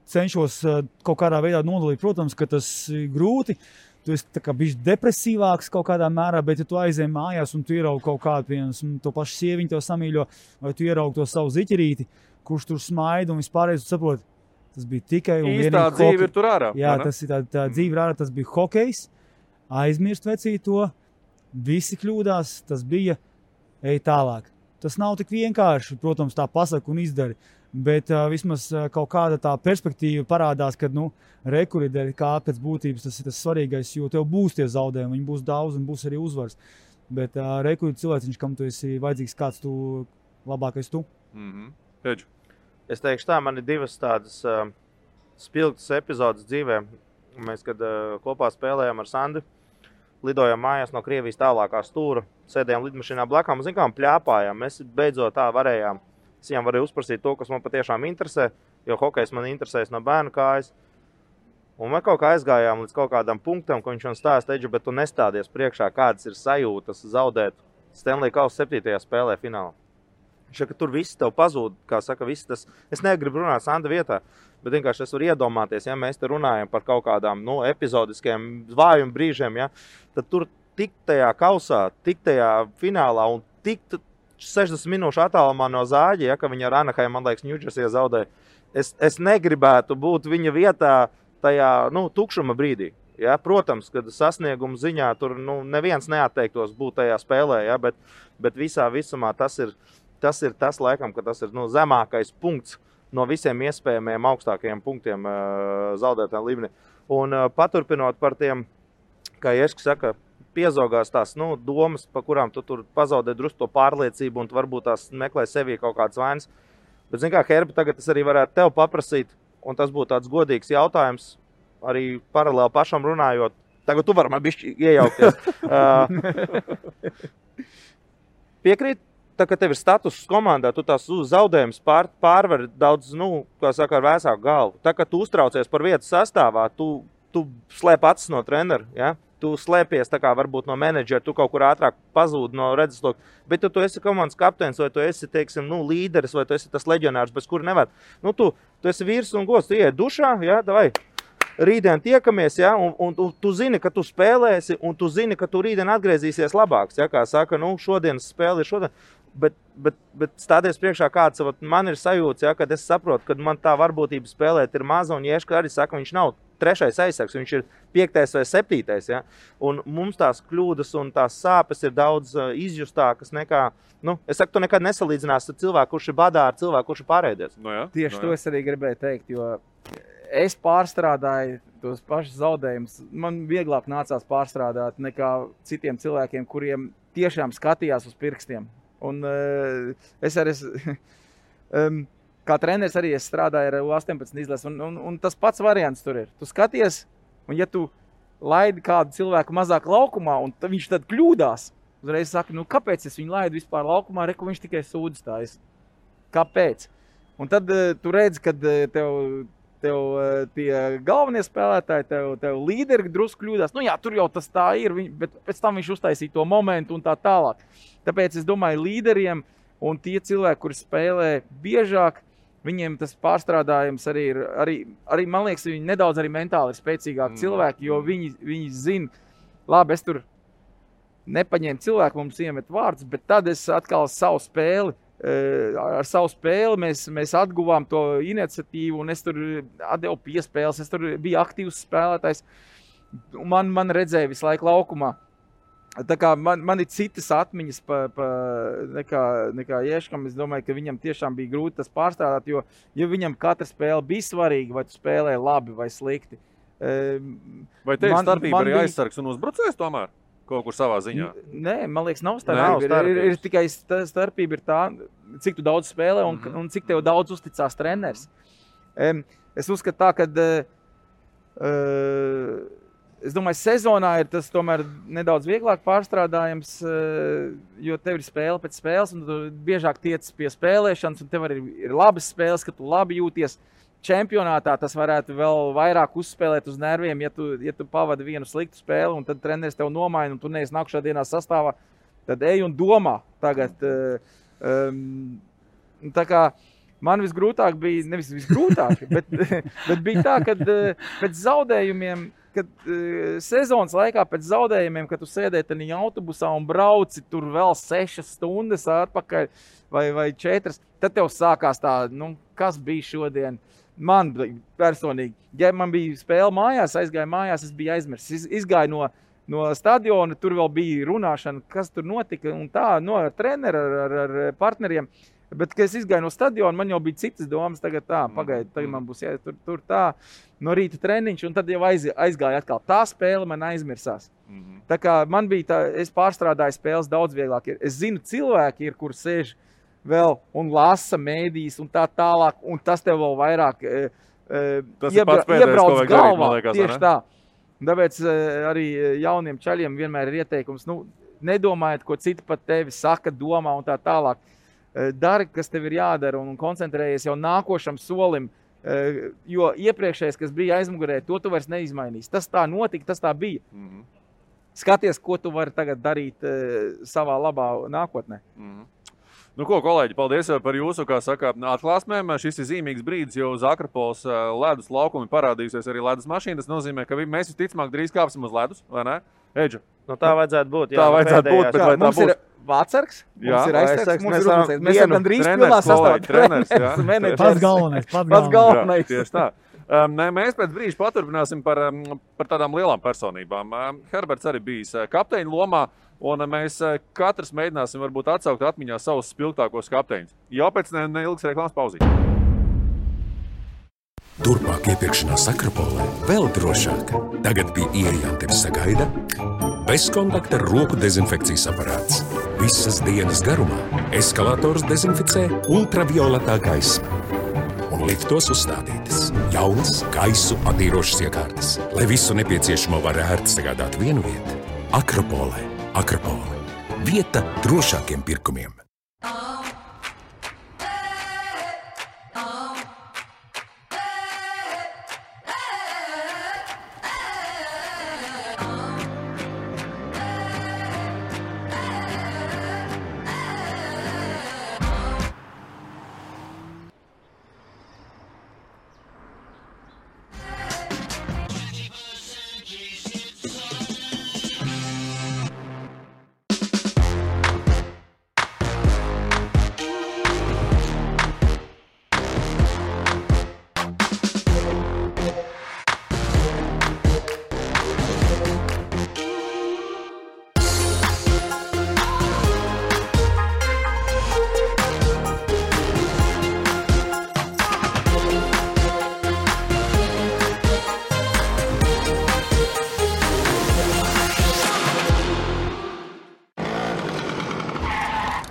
cenšos kaut kādā veidā nodalīt, protams, ka tas ir grūti. Tu esi tā kā bišķi depresīvāks kaut kādā mērā, bet ja tu aizej mājās un tu ieraugi kaut kādu, piemēram, to pašu sieviņu tev samīļo, vai tu ieraugi to savu ziķerīti, kurš tur smaida un vispārējais, tu saproti, tas bija tikai un vienīgi īstā dzīve ir tur ārā. Jā, tas ir tā dzīve ir ārā, tas bija hokejs, aizmirst vecīt to, visi kļūdās, tas bija, ej tālāk. Tas nav tik vienkārši, protams, tā pasaka un izdari. Bet vismaz kaut kāda tā perspektīva parādās, ka rekurīdēļ kā pēc būtības tas ir tas svarīgais, jo tev būs tie zaudējumi, viņi būs daudz un būs arī uzvars. Bet rekurīd cilvēciņš, kam tu esi vajadzīgs, kāds tu labākais tu. Pēdž. Es teikšu tā, man ir divas tādas spilgtas epizodes dzīvē. Mēs, kad kopā spēlējām ar Sandu, lidojām mājās no Krievijas tālākā stūra, sēdējām lidmašīnā blakām, pļāpājām. Mēs beidzot tā varējām. Es viņam varēju uzprasīt to, kas man patiešām interesē, jo hokejs man interesēs no bērnu kājas. Un mēs kaut kā aizgājām līdz kaut kādam punktam, ko viņš man stāsta, Edži, bet tu nestādies priekšā, kādas ir sajūtas zaudēt Stanley Kausa 7. spēlē finālā. Viņš saka, ka tur viss tev pazūd, kā saka, viss tas. Es negribu runāt Sanda vietā, bet vienkārši es varu iedomāties, ja mēs te runājam par kaut kādām epizodiskiem zvājuma brīžiem, ja, tad tur tik tajā kausā, tik tajā finālā un tik 60 minūšu attālumā no Zāģa, ja, ka viņa ar Anaheim, man liekas, Ņūdžersijā zaudēja. Es negribētu būt viņa vietā tajā tukšuma brīdī. Ja. Protams, kad sasnieguma ziņā tur neviens neatteiktos būt tajā spēlē, ja, bet visā visumā tas ir tas laikam, ka tas ir zemākais punkts no visiem iespējamiem augstākajiem punktiem zaudētājiem līmenī. Un paturpinot par tiem, kā Ješka saka, piezogās tās domas, pa kurām tu tur pazaudē drusku to pārliecību un tu varbūt tās meklē sevī kaut kādas vainas. Bet, zin kā, Herbi, tagad es arī varētu tev paprasīt, un tas būtu tāds godīgs jautājums, arī paralēli pašam runājot. Tagad tu vari man bišķi iejaukties. Piekrīt, tā kā tev ir status komandā, tu tās zaudējumus pārvar daudz, kā saka, ar vēsāku galvu. Tā kā tu uztraucies par vietu sastāvā, tu slēp acis no trenera, ja? Tu slēpies tā kā varbūt no menedžera, tu kaut kur ātrāk pazūd no redzesloka, bet tu esi komandas kapteinis, vai tu esi, teiksim, līderis, vai tu esi tas leģionārs, bez kura nevar. Tu esi vīrs un gods, tu ieiet dušā, ja, davai, rītdien tiekamies, ja, un tu zini, ka tu spēlēsi, un tu zini, ka tu rītdien atgriezīsies labāks, ja, kā saka, šodienas spēle ir šodien. Bet stāties priekšā kāds, man ir sajūts, ja, kad es saprotu, ka man tā varbūtība spēlēt ir maza, un Ješka arī saka, viņš nav 3. aizsargs, viņš ir 5. vai 7. Ja? Un mums tās kļūdas un tās sāpes ir daudz izjustākas nekā, es saku, tu nekad nesalīdzinās ar cilvēku, kurš ir badā, ar cilvēku, kurš ir pārēdies. Tieši to es arī gribēju teikt, jo es pārstrādāju tos pašus zaudējumus man vieglāk nācās pārstrādāt nekā citiem cilvēkiem, kuriem tiešām skatījās uz pirkstiem. Un es arī, kā treneris arī es strādāju ar U18 izlasi, un tas pats variants tur ir. Tu skaties, un ja tu laidi kādu cilvēku mazāk laukumā, un viņš tad kļūdās, uzreiz saka, nu kāpēc es viņu laidu vispār laukumā, reku viņš tikai sūdzas tājas. Kāpēc? Un tad tu redzi, kad tev tie galvenie spēlētāji, tev līderi drusku kļūdās. Nu jā, tur jau tas tā ir, bet pēc tam viņš uztaisīja to momentu un tā tālāk. Tāpēc es domāju, līderiem un tie cilvēki, kuri spēlē biežāk, viņiem tas pārstrādājums arī man liekas, viņi nedaudz arī mentāli ir spēcīgāki cilvēki, jo viņi zina, labi, es tur nepaņēmu cilvēku, mums iemet vārds, bet tad es atkal ar savu spēli mēs atguvām to iniciatīvu, un es tur atdevu piespēles, es tur biju aktīvs spēlētājs. Man redzēja visu laiku laukumā. Tā kā man ir citas atmiņas nekā Ješkam. Es domāju, ka viņam tiešām bija grūti tas pārstrādāt, jo viņam katra spēle bija svarīga, vai tu spēlē labi vai slikti. Vai tev starpība arī aizsargs un uzbrucējs tomēr? Kaut kur savā ziņā? Nē, man liekas, nav starpība. Ir tikai starpība ir tā, cik tu daudz spēlē un cik tev daudz uzticās treneris. Es uzskatu tā, ka es domāju, sezonā ir tas tomēr nedaudz vieglāk pārstrādājams, jo tev ir spēle pēc spēles un tu biežāk tiec pie spēlēšanas un tev arī ir labas spēles, ka tu labi jūties. Čempionātā tas varētu vēl vairāk uzspēlēt uz nerviem, ja tu pavadi vienu sliktu spēli un tad treneris tev nomaina un tu neesi nākušā dienā sastāvā, tad ej un domā tagad. Tā kā man visgrūtāk bija, nevis visgrūtāk, bet bija tā, kad pēc zaudējumiem, kad sezonas laikā pēc zaudējumiem, kad tu sēdēji tajā autobusā un brauci tur vēl 6 stundas atpakaļ vai 4, tad tev sākās tā, kas bija šodien. Man personīgi, ja man bija spēle mājās, aizgāju mājās, es biju aizmirsis. Izgāju no stadiona, tur vēl bija runāšana, kas tur notika un tā, ar treneru, ar partneriem. Bet, kad es izgāju no stadiona, man jau bija citas domas, tagad tagad man būs tur tā, no rīta treniņš, un tad jau aizgāju atkal. Tā spēle man aizmirsās. Tā kā man bija tā, es pārstrādāju spēles daudz vieglāk. Es zinu, cilvēki ir, kur sēž vēl un lasa mēdīs un tā tālāk, un tas tev vēl vairāk iebrauc galvā. Tieši tā. Tāpēc arī jauniem čaļiem vienmēr ir ieteikums, nedomājiet, ko citi pat tevi saka, domā un tā tālāk. Dari, kas tev ir jādara un koncentrējies jau nākošam solim, jo iepriekšējais, kas bija aizmugurē, to tu vairs neizmainīs. Tas tā notika, tas tā bija. Skaties, ko tu vari tagad darīt savā labā nākotnē. Nu ko, kolēģi, paldies par jūsu, kā saka, atklāsmēm. Šis ir zīmīgs brīdis, jo uz Akrapoles ledus laukumi parādījusies arī ledus mašīna. Tas nozīmē, ka mēs visticamāk drīz kāpsim uz ledus, vai ne? Eģu? Tā vajadzētu būt. Tā vajadzētu būt, bet vai tā būs? Mums ir vācargs, mums ir aizsargs, mums ir uzbrucējs. Mēs esam drīz pilnā sastāvā. Pats galvenais. Tieši tā. Mēs pēc brīža paturpināsim par tādām lielām personībām. Herberts arī bijis kapteiņa lomā, un mēs katrs mēģināsim varbūt atsaukt atmiņā savus spilgtākos kapteiņus. Jau pēc neilgas reklāmas pauzīt. Turpmāk iepirkšanās Akropolē vēl drošāk. Tagad pie ieejām tevi sagaida bezkontakta roku dezinfekcijas aparāts. Visas dienas garumā eskalators dezinficē ultravioletā gaisma. Un liftos uzstādītas jaunas gaisu attīrošas iekārtas, lai visu nepieciešamo var ērti sagādāt vienu vietu. Akropolē. Akropole. Vieta drošākiem pirkumiem.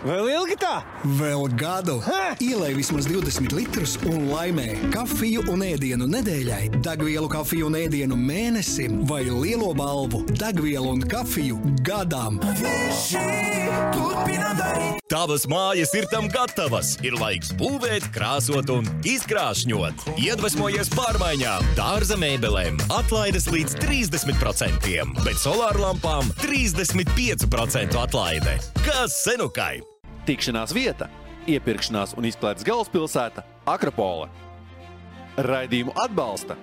Vēl ilgi tā? Vēl gadu. Ielej vismaz 20 litrus un laimē kafiju un ēdienu nedēļai, degvielu kafiju un ēdienu mēnesim vai lielo balvu degvielu un kafiju gadām. Tavas mājas ir tam gatavas. Ir laiks būvēt, krāsot un izkrāšņot. Iedvesmojies pārmaiņām, dārza mēbelēm, atlaides līdz 30%, bet solārlampām 35% atlaide. Kas senukai? Tikšanās vieta, iepirkšanās un izklaides galvaspilsēta Akropole. Raidījumu atbalsta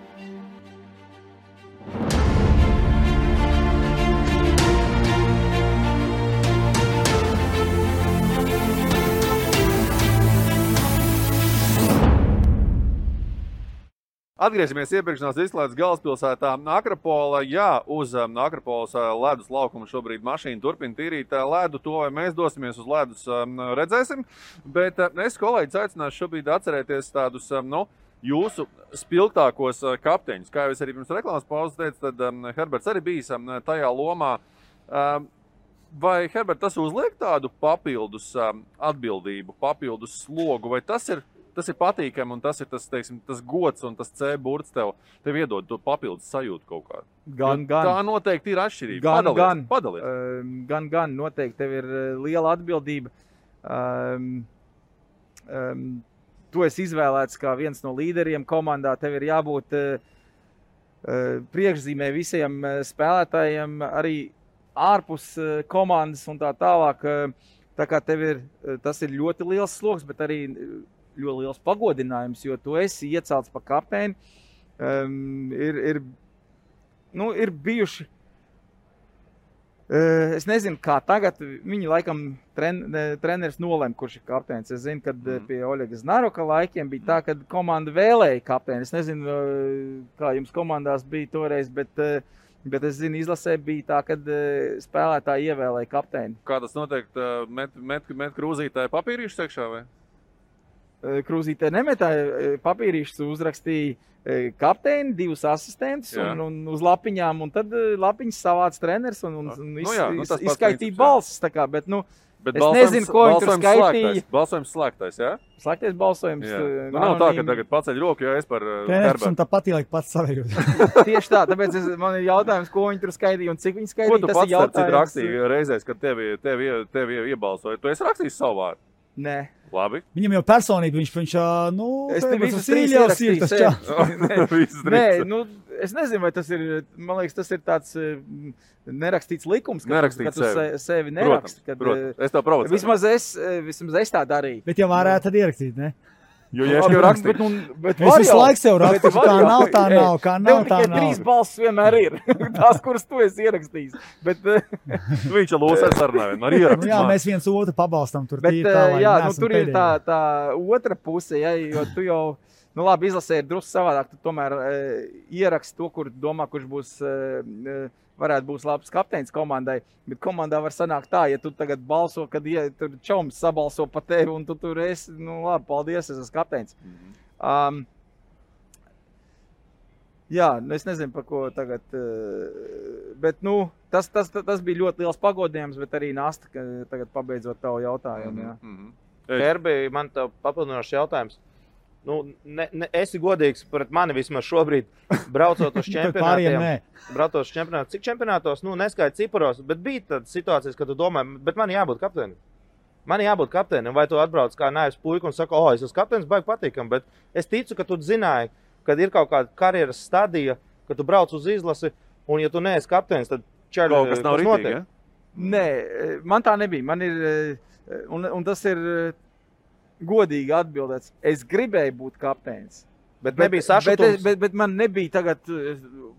Atgriežamies iepirkšanās izklaides galvaspilsētā Akropola. Jā, uz Akropolas ledus laukuma šobrīd mašīna turpina tīrīt ledu. To, vai mēs dosimies uz ledus, redzēsim. Bet es kolēģis aicināšu šobrīd atcerēties tādus, jūsu spilgtākos kapteiņus. Kā jau es arī pirms reklāmas pauzes teicu, tad Herberts arī bijis tajā lomā. Vai, Herbert, tas uzliek tādu papildus atbildību, papildus slogu, vai tas ir patīkami un tas ir tas gods un tas C burts tev iedod to papildus sajūtu kaut kā? Gan. Tā noteikti ir atšķirība. Padalies. Gan. Noteikti tev ir liela atbildība. Tu esi izvēlēts kā viens no līderiem komandā. Tev ir jābūt priekšzīmē visiem spēlētājiem, arī ārpus komandas un tā tālāk. Tā kā tas ir ļoti liels sloks, bet arī ļoti liels pagodinājums, jo tu esi iecelts par kapteini. Ir bijuši, es nezinu, kā tagad, viņi laikam treneris nolēma, kurš ir kapteinis. Es zinu, kad pie Oļega Znaroka laikiem bija tā, kad komanda vēlēja kapteini. Es nezinu, kā jums komandās bija toreiz, bet es zinu, izlasē bija tā, kad spēlētāji ievēlēja kapteini. Kā tas notiek? Met krūzītāji papīrīšus iekšā vai? Krūzītē nemetāja papīrīšus, uzrakstīja kapteini, 2 asistentus un uz lapiņām, un tad lapiņas savāc treneris un izskaitīja balsis. Bet es nezinu, ko viņi tur skaitīja. Balsojums slēgtais, jā? Slēgtais balsojums. Nav tā, ka tagad paceļ roku, jo es par Herbertu. Un tāpat ieliek pats savējot. Tieši tā, tāpēc man ir jautājums, ko viņi tur skaitīja un cik viņi skaitīja. Ko tu pats starp citu rakstīji reizēs, kad tevi iebalsoja? Tu esi rakstījis savu vārdu? Nē. Labi. Viņam jau personīgi, viņš es te visus 3 ierakstīju. Nē, es nezinu, vai tas ir, man liekas, tas ir tāds nerakstīts likums, ka tu sevi neraksti. Protams, es tev provocēju. Vismaz es tā darīju. Bet jau varētu tad ierakstīt, ne? Jo, ja es jau rakstīju. Es visu laiku sev rakstu, kā nav, tā nav, kā nav, tā nav. Tev tikai 3 balsis vienmēr ir. Tās, kuras tu esi ierakstījis. Viņš jau lūs ar sarunājumu, ar ierakstu. Jā, mēs viens otru pabalstam tur tīri tā, lai neesam tur ir tā otra puse, jo tu jau, labi, izlasē ir drusku savādāk, tu tomēr ieraksti to, kur domā, kurš būs varētu būt labs kapteinis komandai, bet komandā var sanākt tā, ja tu tagad balso, kad tur čoms sabalso pa tevi un tu tur esi, labi, paldies, es esmu kapteinis. Jā, es nezinu, par ko tagad, bet, tas bija ļoti liels pagodinājums, bet arī Nasta, tagad pabeidzot tavu jautājumu, jā. Herbi, man tev papildinošs jautājums. Esi godīgs pret mani vismaz šobrīd, braucot uz čempionātiem. Braucot uz čempionātiem. Cik čempionātos, neskaidrs ciparos, bet bija tādas situācijas, kad tu domā, bet man jābūt kapteinim. Vai tu atbrauc kā naivs puika un saka, es esmu kapteinis, baigi patīkam, bet es ticu, ka tu zināji, kad ir kaut kāda karjeras stadija, kad tu brauc uz izlasi, un ja tu neesi kapteinis, tad kaut kas nav ritīgi, ja? Nē, man tā nebija. Man ir, un tas ir godīgi atbildēts. Es gribēju būt kapteinis. Bet nebija sašutums. Bet man nebija tagad,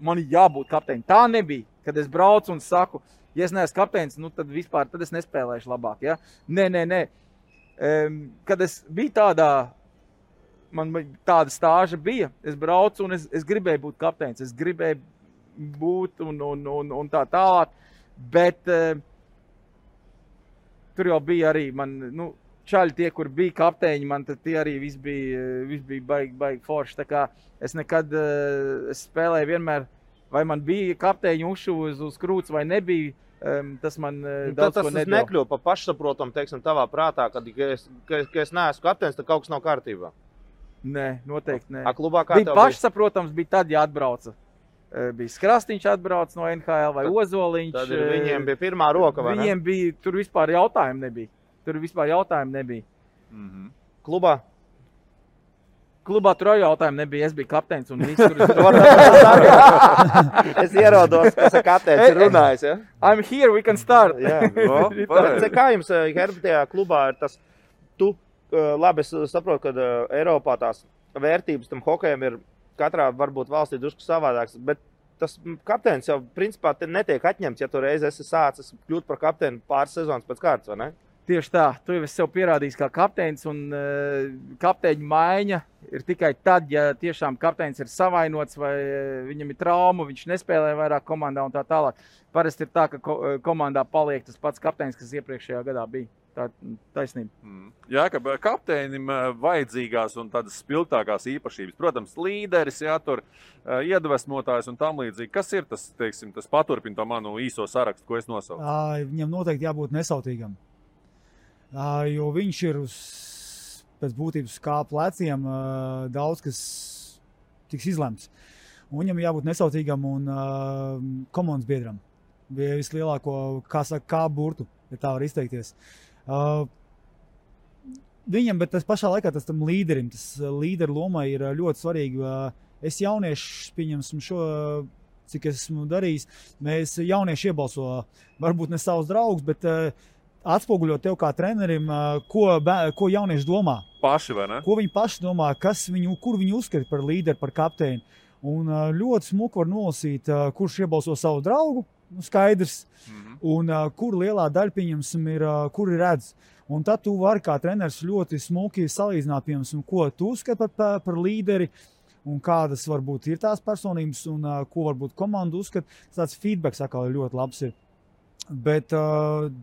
man jābūt kapteinim. Tā nebija, kad es braucu un saku, ja es neesmu kapteinis, tad vispār tad es nespēlēšu labāk. Ja? Nē. Kad es biju man tāda stāža bija, es braucu un es gribēju būt kapteinis. Es gribēju būt un tā tālāk. Bet tur jau bija arī čaļi tie, kur bija kapteiņi, man tad tie arī viss bija baigi forši. Tā kā es nekad es spēlēju vienmēr, vai man bija kapteiņu ušu uz krūts vai nebija. Tas man daudz ko nedod. Tas nekļūst par pašsaprotam, teiksim, tavā prātā, kad es neesmu kapteinis, tad kaut kas nav kārtībā. Nē, noteikti nē. Klubā kā bija pašsaprotams, bija tad, ja atbrauca. Bija Skrastīņš atbrauc no NHL vai Ozoliņš. Tad viņiem bija pirmā roka, vai ne? Viņiem bija, tur vispār jautājumu nebija. Klubā? Klubā tur jautājumu nebija, es biju kapteinis un viss tur. Es ierodos, kas ar kapteinis ir runājis, ja? I'm here, we can start. Kā jums, Herbi, tajā klubā ir tas, labi, es saprotu, ka Eiropā tās vērtības tam hokejam ir katrā varbūt valstī drusku savādāks, bet tas kapteinis jau principā netiek atņemts, ja tu reiz esi sācis kļūt par kapteini pāris sezonas pēc kārtas, vai ne? Tieši tā, tu jau esi sev pierādījis kā kapteinis, un kapteiņa maiņa ir tikai tad, ja tiešām kapteinis ir savainots vai viņam ir trauma, viņš nespēlē vairāk komandā un tā tālāk. Parasti ir tā, ka komandā paliek tas pats kapteinis, kas iepriekšējā gadā bija. Tā taisnība. Jā, ka kapteinim vajadzīgās un tādas spilgtākās īpašības. Protams, līderis, jā, tur iedvesmotājs un tam līdzīgi. Kas ir tas, teiksim, tas paturpina to manu īso sarakstu, ko es nosaucu? Viņam noteikti jābūt nesautīgam. Jo viņš ir pēc būtības kā pleciem daudz, kas tiks izlemts. Un viņam jābūt nesautīgam un komandas biedram. Bija vislielāko, kā saka, kā burtu, ja tā var izteikties. Viņam, bet tas pašā laikā tas tam līderim, tas līderu lomai ir ļoti svarīgi. Es jaunieši, pieņemsim šo, cik esmu darījis, mēs jaunieši iebalso, varbūt ne savus draugus, bet atspoguļot tev kā trenerim, ko jaunieši domā. Paši, vai ne? Ko viņi paši domā, kur viņi uzskata par līderi, par kapteini. Un ļoti smuki var nolasīt, kurš iebalso savu draugu, skaidrs, un kur lielā daļa, pieņemsim, ir, kur ir redz. Un tad tu vari kā treneris ļoti smuki salīdzināt, piemēram, ko tu uzskati par līderi, un kādas varbūt ir tās personības, un ko varbūt komanda uzskata. Tāds feedbacks atkal ļoti labs ir. Bet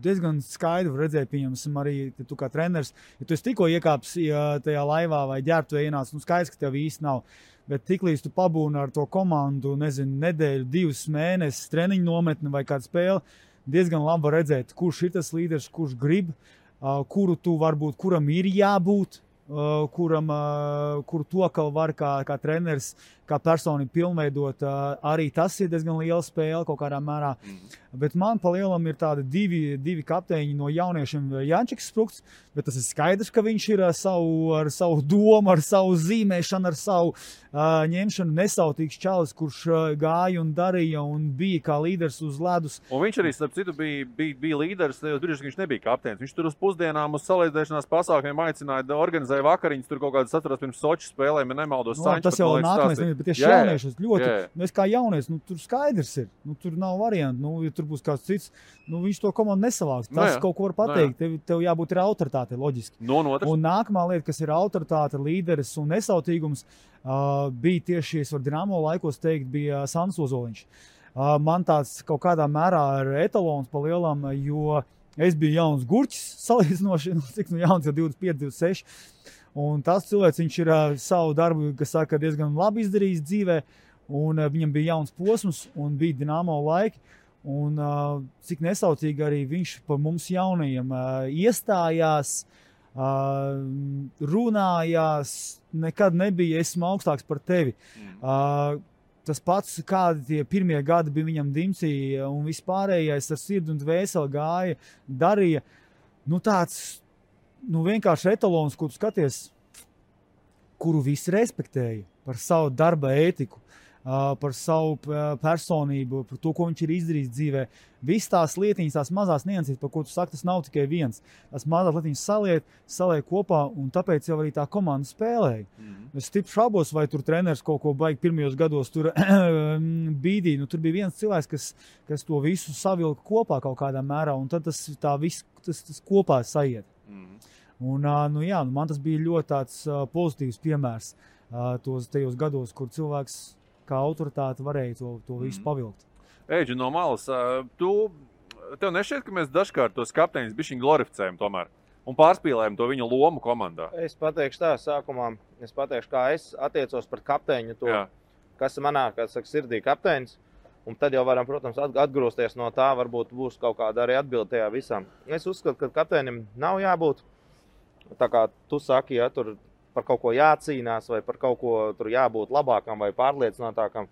diezgan skaidri redzēja, pieņemsim, arī tu kā treneris, ja tu esi tikko iekāpis tajā laivā vai ģērbtuvē ienāc, skaidrs, ka tev īsti nav. Bet tiklīdz tu pabūni ar to komandu, nezinu, nedēļu, 2 mēnesis, treniņu nometni vai kādu spēli, diezgan labi var redzēt, kurš ir tas līderis, kurš grib, kuru tu varbūt, kuram ir jābūt, kuru to, ka var kā treneris, kā personi pilnveidot, arī tas ir diezgan liela spēle kaut kādā mērā. Bet man pa lielam ir tādi divi kapteiņi no jauniešiem. Jančiks Sprukts, bet tas ir skaidrs, ka viņš ir ar savu domu, ar savu zīmēšanu, ar savu ņemšanu nesautīgs čalis, kurš gāja un darīja un bija kā līderis uz ledus. Un viņš arī, starp citu, bija līderis, tajos brīžos, ka viņš nebija kapteinis. Viņš tur uz pusdienām, uz salīdzēšanās pasākumiem aicināja, organizēja vakariņas, tur kaut kādas atceros pirms Soču spēlēm, ja nemaldos. Tas jau nākamais, bet tieši jauniešus ļoti, es kā jaunies, tur skaidrs ir, tur nav variantu, ja tur būs kāds cits, viņš to komandu nesavāks. Tas kaut ko var pateikt, tev jābūt ir autoritāte, loģiski. Un nākamā lieta, kas ir autoritāte, līderis un nesautīgums, bija tieši, es varu Dinamo laikos teikt, bija Sandis Ozoliņš. Man tāds kaut kādā mērā ir etalons pa lielam, jo es biju jauns gurķis, salīdzinoši, cik jauns jau 25, 26. Un tas cilvēks, viņš ir savu darbu, kas saka, diezgan labi izdarījis dzīvē, un viņam bija jauns posms, un bija Dinamo laiki, un cik nesaucīgi arī viņš par mums jaunajiem iestājās, runājās, nekad nebija, esmu augstāks par tevi. Tas pats, kādi tie pirmie gadi bija viņam dimcī, un vispārējais ar sirdi un dvēseli gāja, darīja, tāds, vienkārši etalons, kur tu skaties, kuru visi respektēja par savu darba ētiku, par savu personību, par to, ko viņš ir izdarījis dzīvē. Viss tās lietiņas, tās mazās niansītes, par ko tu saki, tas nav tikai viens. Tās mazās lietiņas saliek kopā, un tāpēc jau arī tā komanda spēlēja. Es stipri šaubos, vai tur treneris kaut ko baigi pirmajos gados tur bīdīja. Tur bija viens cilvēks, kas to visu savilka kopā kaut kādā mērā, un tad tas kopā saiet. Un, man tas bija ļoti tāds pozitīvs piemērs tajos gados, kur cilvēks kā autoritāte varēja to visu pavilkt. Eģi, no malas, tev nešķiet, ka mēs dažkārt tos kapteiņus bišķiņ glorificējam tomēr un pārspīlējam to viņu lomu komandā? Es pateikšu tā, sākumā, kā es attiecos par kapteiņu to, kas manā, kā saka, sirdī kapteinis. Un tad jau varam, protams, atgrūsties no tā, varbūt būs kaut kāda arī atbilde tajā visam. Es uzskatu, ka kapteinim nav jābūt, tā kā tu saki, ja tur par kaut ko jācīnās vai par kaut ko tur jābūt labākam vai pārliecinātākam.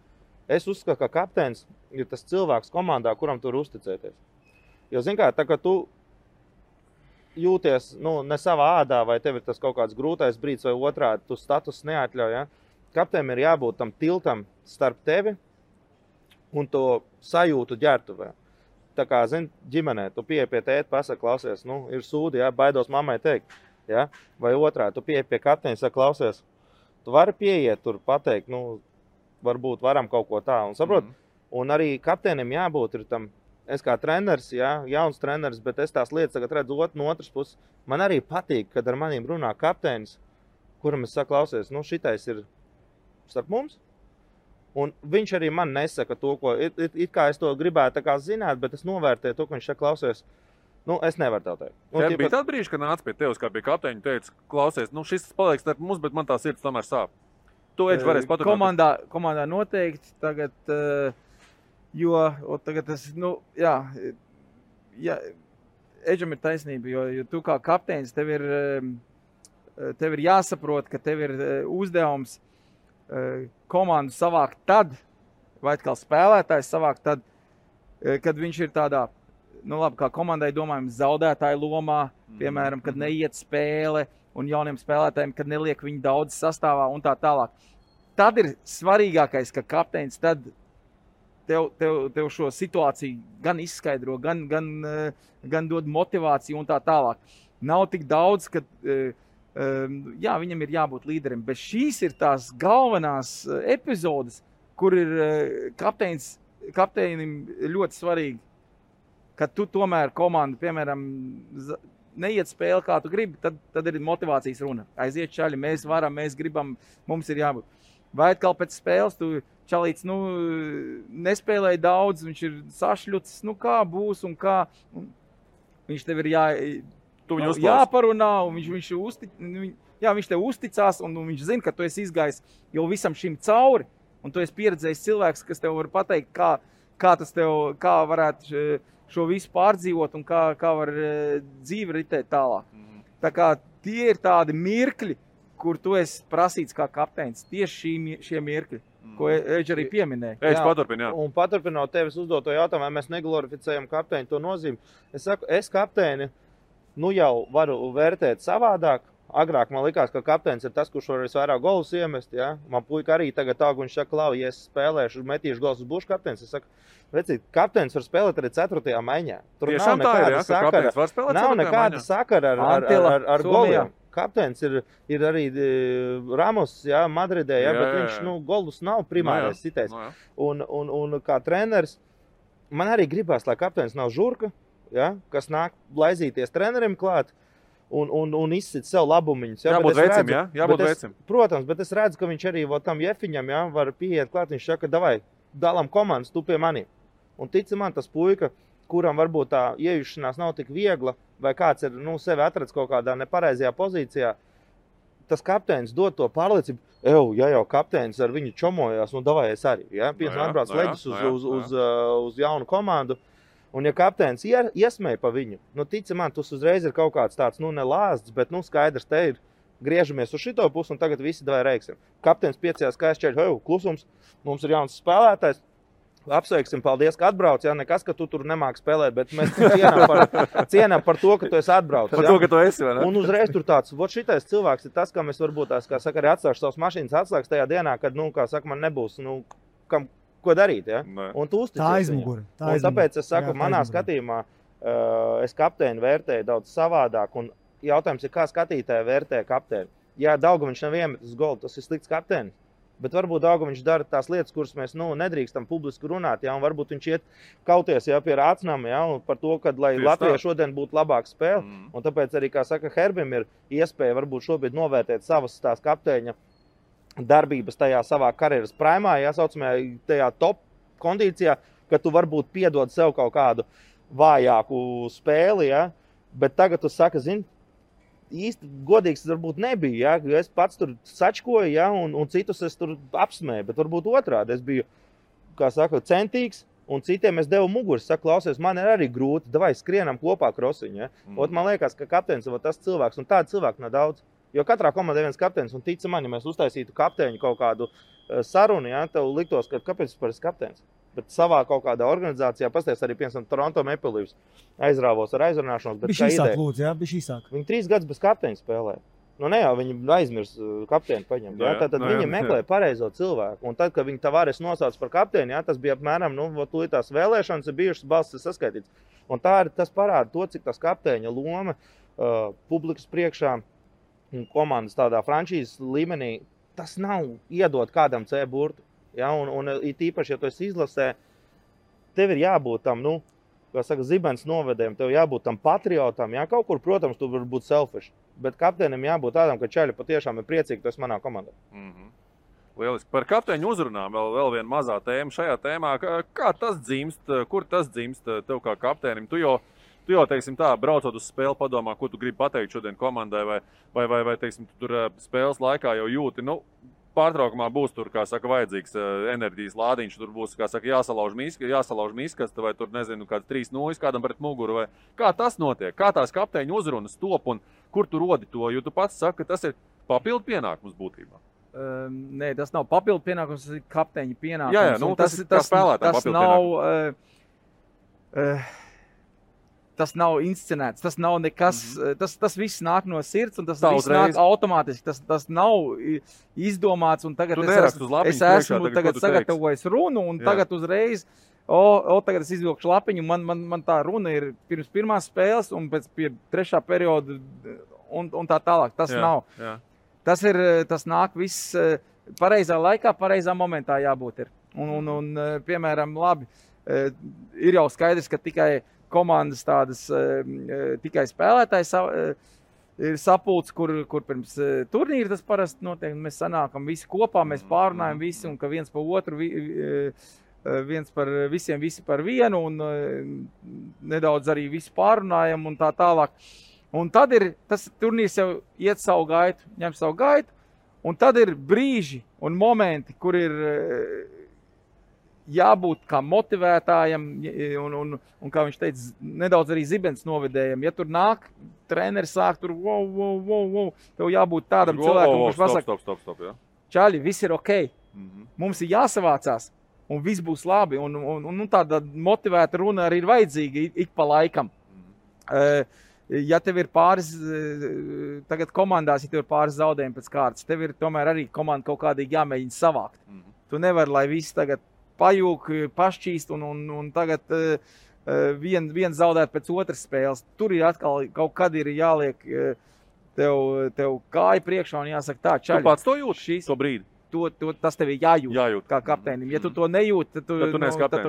Es uzskatu, ka kapteinis ir tas cilvēks komandā, kuram tur uzticēties. Jo, zin kā, tā kā tu jūties, ne savā ādā, vai tev ir tas kaut kāds grūtais brīdis vai otrādi, tu status neatļauj, ja? Kapteinim ir jābūt tam tiltam starp tevi un to sajūtu ģertuvē. Tā kā, ģimenē, tu pieeji pie tēta, pasaka, klausies, ir sūdi, ja? Baidos mammai teikt, ja? Vai otrādi, tu pieeji pie kapteina, saka, klausies, tu vari pieiet tur pateikt, varbūt varam kaut ko tā, un saprot, un arī kapteinim jābūt ir tam. Es kā treneris, jauns treneris, bet es tās lietas tagad redzu no otras puses. Man arī patīk, kad ar maniem runā kapteinis, kuram es saku, klausies, šitais ir starp mums. Un viņš arī man nesaka to, ko it kā es to gribētu tā kā zināt, bet es novērtēju to, ka viņš saka, klausies, es nevaru tev teikt. Tev bija tāda brīža, kad nāca pie tevis, kā pie kapteiņa, teica, klausies, šis paliek starp mums, bet man tā sirds tomēr sāp. To Edž varēs paturēt. Komandā noteikti tagad... Jo tagad tas, Edžam ir taisnība, jo tu kā kapteinis, tev ir jāsaprot, ka tev ir uzdevums komandu savākt tad, vai atkal spēlētājs savākt tad, kad viņš ir tādā, kā komandai domājam, zaudētāju lomā, piemēram, kad neiet spēle un jauniem spēlētājiem, kad neliek viņu daudz sastāvā un tā tālāk. Tad ir svarīgākais, ka kapteinis tad tev šo situāciju gan izskaidro, gan dod motivāciju un tā tālāk. Nav tik daudz, ka viņam ir jābūt līderim, bet šīs ir tās galvenās epizodes, kur ir kapteinim ļoti svarīgi, ka tu tomēr komandu, piemēram, neiet spēli, kā tu gribi, tad ir motivācijas runa. Aiziet čaļi, mēs varam, mēs gribam, mums ir jābūt. Vai atkal pēc spēles tu čalīts, nespēlēja daudz, viņš ir sašļucis, kā būs un kā. Viņš tev ir jāparunā, un viņš tev uzticās, un viņš zina, ka tu esi izgājis jau visam šim cauri, un tu esi pieredzējis cilvēks, kas tev var pateikt, kā varētu šo visu pārdzīvot un kā var dzīve ritēt tālāk. Tā kā tie ir tādi mirkļi, kur tu esi prasīts kā kapteinis, tieši šie mirkļi, ko Edž arī pieminēja. Edž paturpin, jā. Un paturpinot tevis uzdoto jautājumu, vai mēs neglorificējam kapteini to nozīmi. Es saku, es kapteini jau varu vērtēt savādāk. Agrāk man likās, ka kapteinis ir tas, kurš var visvairāk golus iemest. Ja? Man puika arī tagad viņš saka, Lau, ja es spēlēšu, metīšu golus, būšu kapteinis. Es saku, vecīt, kapteinis var spēlēt arī 4. maiņā. Tur tiešām nav nekāda sakara ar goliem. Kapteinis ir arī Ramos, Madridē, bet viņš golus nav primārais sitējs. Un kā treneris, man arī gribās, lai kapteinis nav žurka, kas nāk blaizīties trenerim klāt un izsit sev labumiņus. Jābūt veicim, jābūt veicim. Protams, bet es redzu, ka viņš arī tam Jefiņam var pieiet klāt, viņš saka, davai, dalam komandas, tu pie maniem. Un tici man, tas puika, kuram varbūt tā iejušanās nav tik viegla, vai kāds ir sevi atradis kaut kādā nepareizajā pozīcijā, tas kapteinis dod to pārliecību, ja jau kapteinis ar viņu čomojās, davai es arī. Piemēram, atbrauc leģis uz jaunu komandu, un ja kapteinis iesmēja pa viņu, tici man, tas uzreiz ir kaut kāds tāds, nelāsts, bet skaidrs, te ir, griežamies uz šito pusi, un tagad visi davai reiksim. Kapteinis piecījās skaisčēļ, klusums, mums ir jauns spēlētājs, apsveiksim, paldies, ka atbrauc, nekas, ka tu tur nemāki spēlēt, bet mēs cienām par to, ka tu esi atbrauc. Par to, ka tu esi, vai ne? Un uzreiz tur tāds, šitais cilvēks ir tas, kam es varbūt tās, kā saka, arī atstāšu savas mašīnas atslēgas tajā dienā, kad, kā saka, man nebūs, ko darīt, Un tu uzticies. Tā aizmuguri. Tāpēc es saku, manā skatījumā es kapteini vērtēju daudz savādāk, un jautājums ir, kā skatītāji vērtē kapteini. Ja Daugaviņš nav iemetis golu, tas ir slikts kapteinis. Bet varbūt Daugaviņš dara tās lietas, kuras mēs nedrīkstam publiski runāt, un varbūt viņš iet kauties pie Rācnam, par to, ka lai Latvijai šodien būtu labāka spēle. Un tāpēc arī, kā saka, Herbim ir iespēja varbūt šobrīd novērtēt savas tās kapteiņa darbības tajā savā karjeras primā, saucamajā tajā top kondīcijā, ka tu varbūt piedod sev kaut kādu vājāku spēli, bet tagad tu saka, īsti godīgs varbūt nebija, es pats tur sačkoju, un citus es tur apsmēju, bet varbūt otrādi. Es biju kā saka, centīgs, un citiem es devu muguras. Saku, klausies, man ir arī grūti, davai skrienam kopā krosiņu. Ja? Man liekas, ka kapteinis ir tas cilvēks, un tādu cilvēku nav daudz. Jo katrā komandē viens kapteinis, un tic man, ja mēs uztaisītu kapteiņu kaut kādu sarunu, ja, tev liktos, ka kāpēc par kapteinis. Bet savā kaut kādā organizācijā, pasties arī, piemēram, Toronto Maple Leafs aizrāvos ar aizrunāšanos. Bišķi īsāk, lūdzu, jā, bišķi īsāk. Viņi 3 gadus bez kapteiņa spēlē. Nu, ne jau viņi aizmirs kapteini paņemt. Ja? Tad viņi meklē pareizo cilvēku. Un tad, kad viņi Tavares nosauc par kapteini, ja, tas bija apmēram, tās vēlēšanas ir bijušas, balsis ir saskaitīts. Un tas parāda to, cik tas kapteiņa loma publikas priekšā un komandas tādā frančīzes līmenī, tas nav iedot kādam C burtu. Ja? Un īpaši, ja tu esi izlasē, tev ir jābūt tam, kā saka, zibens novedējiem, tev jābūt tam patriotam. Ja? Kaut kur, protams, tu var būt selfish. Bet kapteinim jābūt tādam, ka čaļi patiešām ir priecīgi, ka tu esi manā komandā. Lieliski. Par kapteiņu uzrunām vēl viena mazā tēma šajā tēmā. Kā tas dzimst, kur tas dzimst tev kā kapteinim? Tu jau, teiksim tā, braucot uz spēli, padomā, ko tu gribi pateikt šodien komandai, vai teiksim, tu tur spēles laikā jau jūti, pārtraukumā būs tur, kā saka, vajadzīgs enerģijas lādiņš, tur būs, kā saka, jāsalauž miskas, vai tur, nezinu, kāds 3-0 kādam pret muguru, vai kā tas notiek, kā tās kapteiņu uzrunas top un kur tu rodi to, jo tu pats saki, ka tas ir papildu pienākums būtībā. Nē, tas nav papildu pienākums, tas ir kapteiņa pienākums. Jā, tas nav inscenēts, tas nav nekas, tas viss nāk no sirds un tas viss nāk automātiski, tas nav izdomāts un tagad es esmu tagad sagatavojis runu un tagad uzreiz, tagad es izvilkšu lapiņu, man tā runa ir pirms pirmās spēles un pēc 3. perioda un tā tālāk, tas nav. Jā. Tas nāk viss pareizā laikā, pareizā momentā jābūt ir. Un piemēram, labi, ir jau skaidrs, ka tikai komandas tādas tikai spēlētājs ir sapulcs, kur pirms turnīra tas parasti notiek. Mēs sanākam visi kopā, mēs pārunājam visi un ka viens pa otru, viens par visiem, visi par vienu un nedaudz arī visi pārunājam un tā tālāk. Un tad tas turnīrs jau iet savu gaitu, ņem savu gaitu, un tad ir brīži un momenti, kur ir jābūt kā motivētājam un kā viņš teica, nedaudz arī zibens novedējam. Ja tur nāk, treneris sāk tur, wow, tev jābūt tādam cilvēkam, kurš pasaka, stop, jā. Čaļi, viss ir ok, mums ir jāsavācās, un viss būs labi, un tāda motivēta runa arī ir vajadzīga ik pa laikam. Ja tev ir pāris, tagad komandās, ja tev ir pāris zaudējumi pēc kārtas, tev ir tomēr arī komanda kaut kādīgi jāmēģina savākt. Tu nevari, lai viss tagad pajūk, pašķīst un tagad viens zaudēt pēc otras spēles. Tur ir atkal kaut kad ir jāliek tev kāja priekšā un jāsaka tā, čaļi. Tu pats to jūti to brīdi? Tas tev ir jājūt kā kapteinim. Ja tu to nejūti, tad tu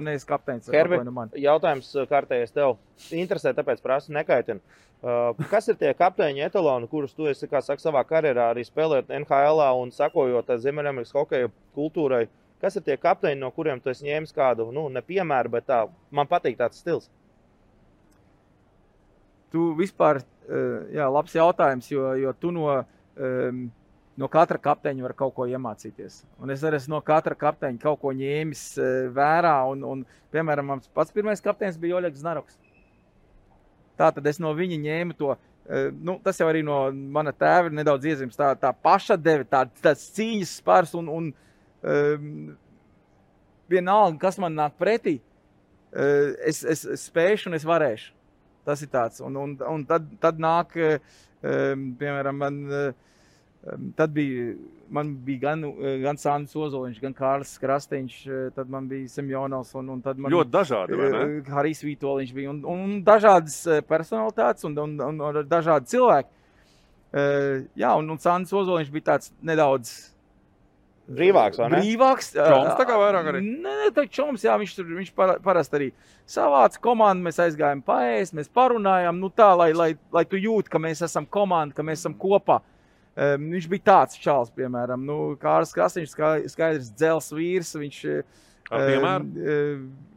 neesi kapteinis. Herbi, jautājums kārtējies tev. Interesē, tāpēc prasu nekaitina. Kas ir tie kapteiņi etaloni, kurus tu esi, kā saka, savā karjerā arī spēlējot NHL-ā un sakojot Ziemeļamerikas hokeja kultūrai? Kas ir tie kapteiņi, no kuriem tu esi ņēmis kādu, ne piemēru, bet tā, man patīk tāds stils? Tu vispār, labs jautājums, jo tu no katra kapteiņa var kaut ko iemācīties. Un es arī esmu no katra kapteiņa kaut ko ņēmis vērā. Un piemēram, mans pats pirmais kapteinis bija Oļegs Znaroks. Tātad es no viņa ņēmu to, tas jau arī no mana tēva ir nedaudz iezīmes, tā pašatdeve, tāds cīņas spars un vienalga, kas man nāk pretī, es spēšu un es varēšu. Tas ir tāds. Un tad nāk, piemēram, man bija gan Sandis Ozoliņš, gan Kārlis Krasteņš, tad man bija Semjonovs un tad man ļoti dažādi, vai ne? Harijs Vītoliņš bija un dažādas personalitātes un dažādi cilvēki. Un Sandis Ozoliņš bija tāds nedaudz brīvāks, vai ne? Brīvāks. Čoms tā kā vairāk arī? Nē, tā čoms, jā, viņš parasti arī savāca komandu, mēs aizgājām paēst, mēs parunājām, tā, lai tu jūti, ka mēs esam komanda, ka mēs esam kopā. Viņš bija tāds čals, piemēram, Kārlis Krasteņš, skaidrs dzels vīrs, viņš... Ar piemēru?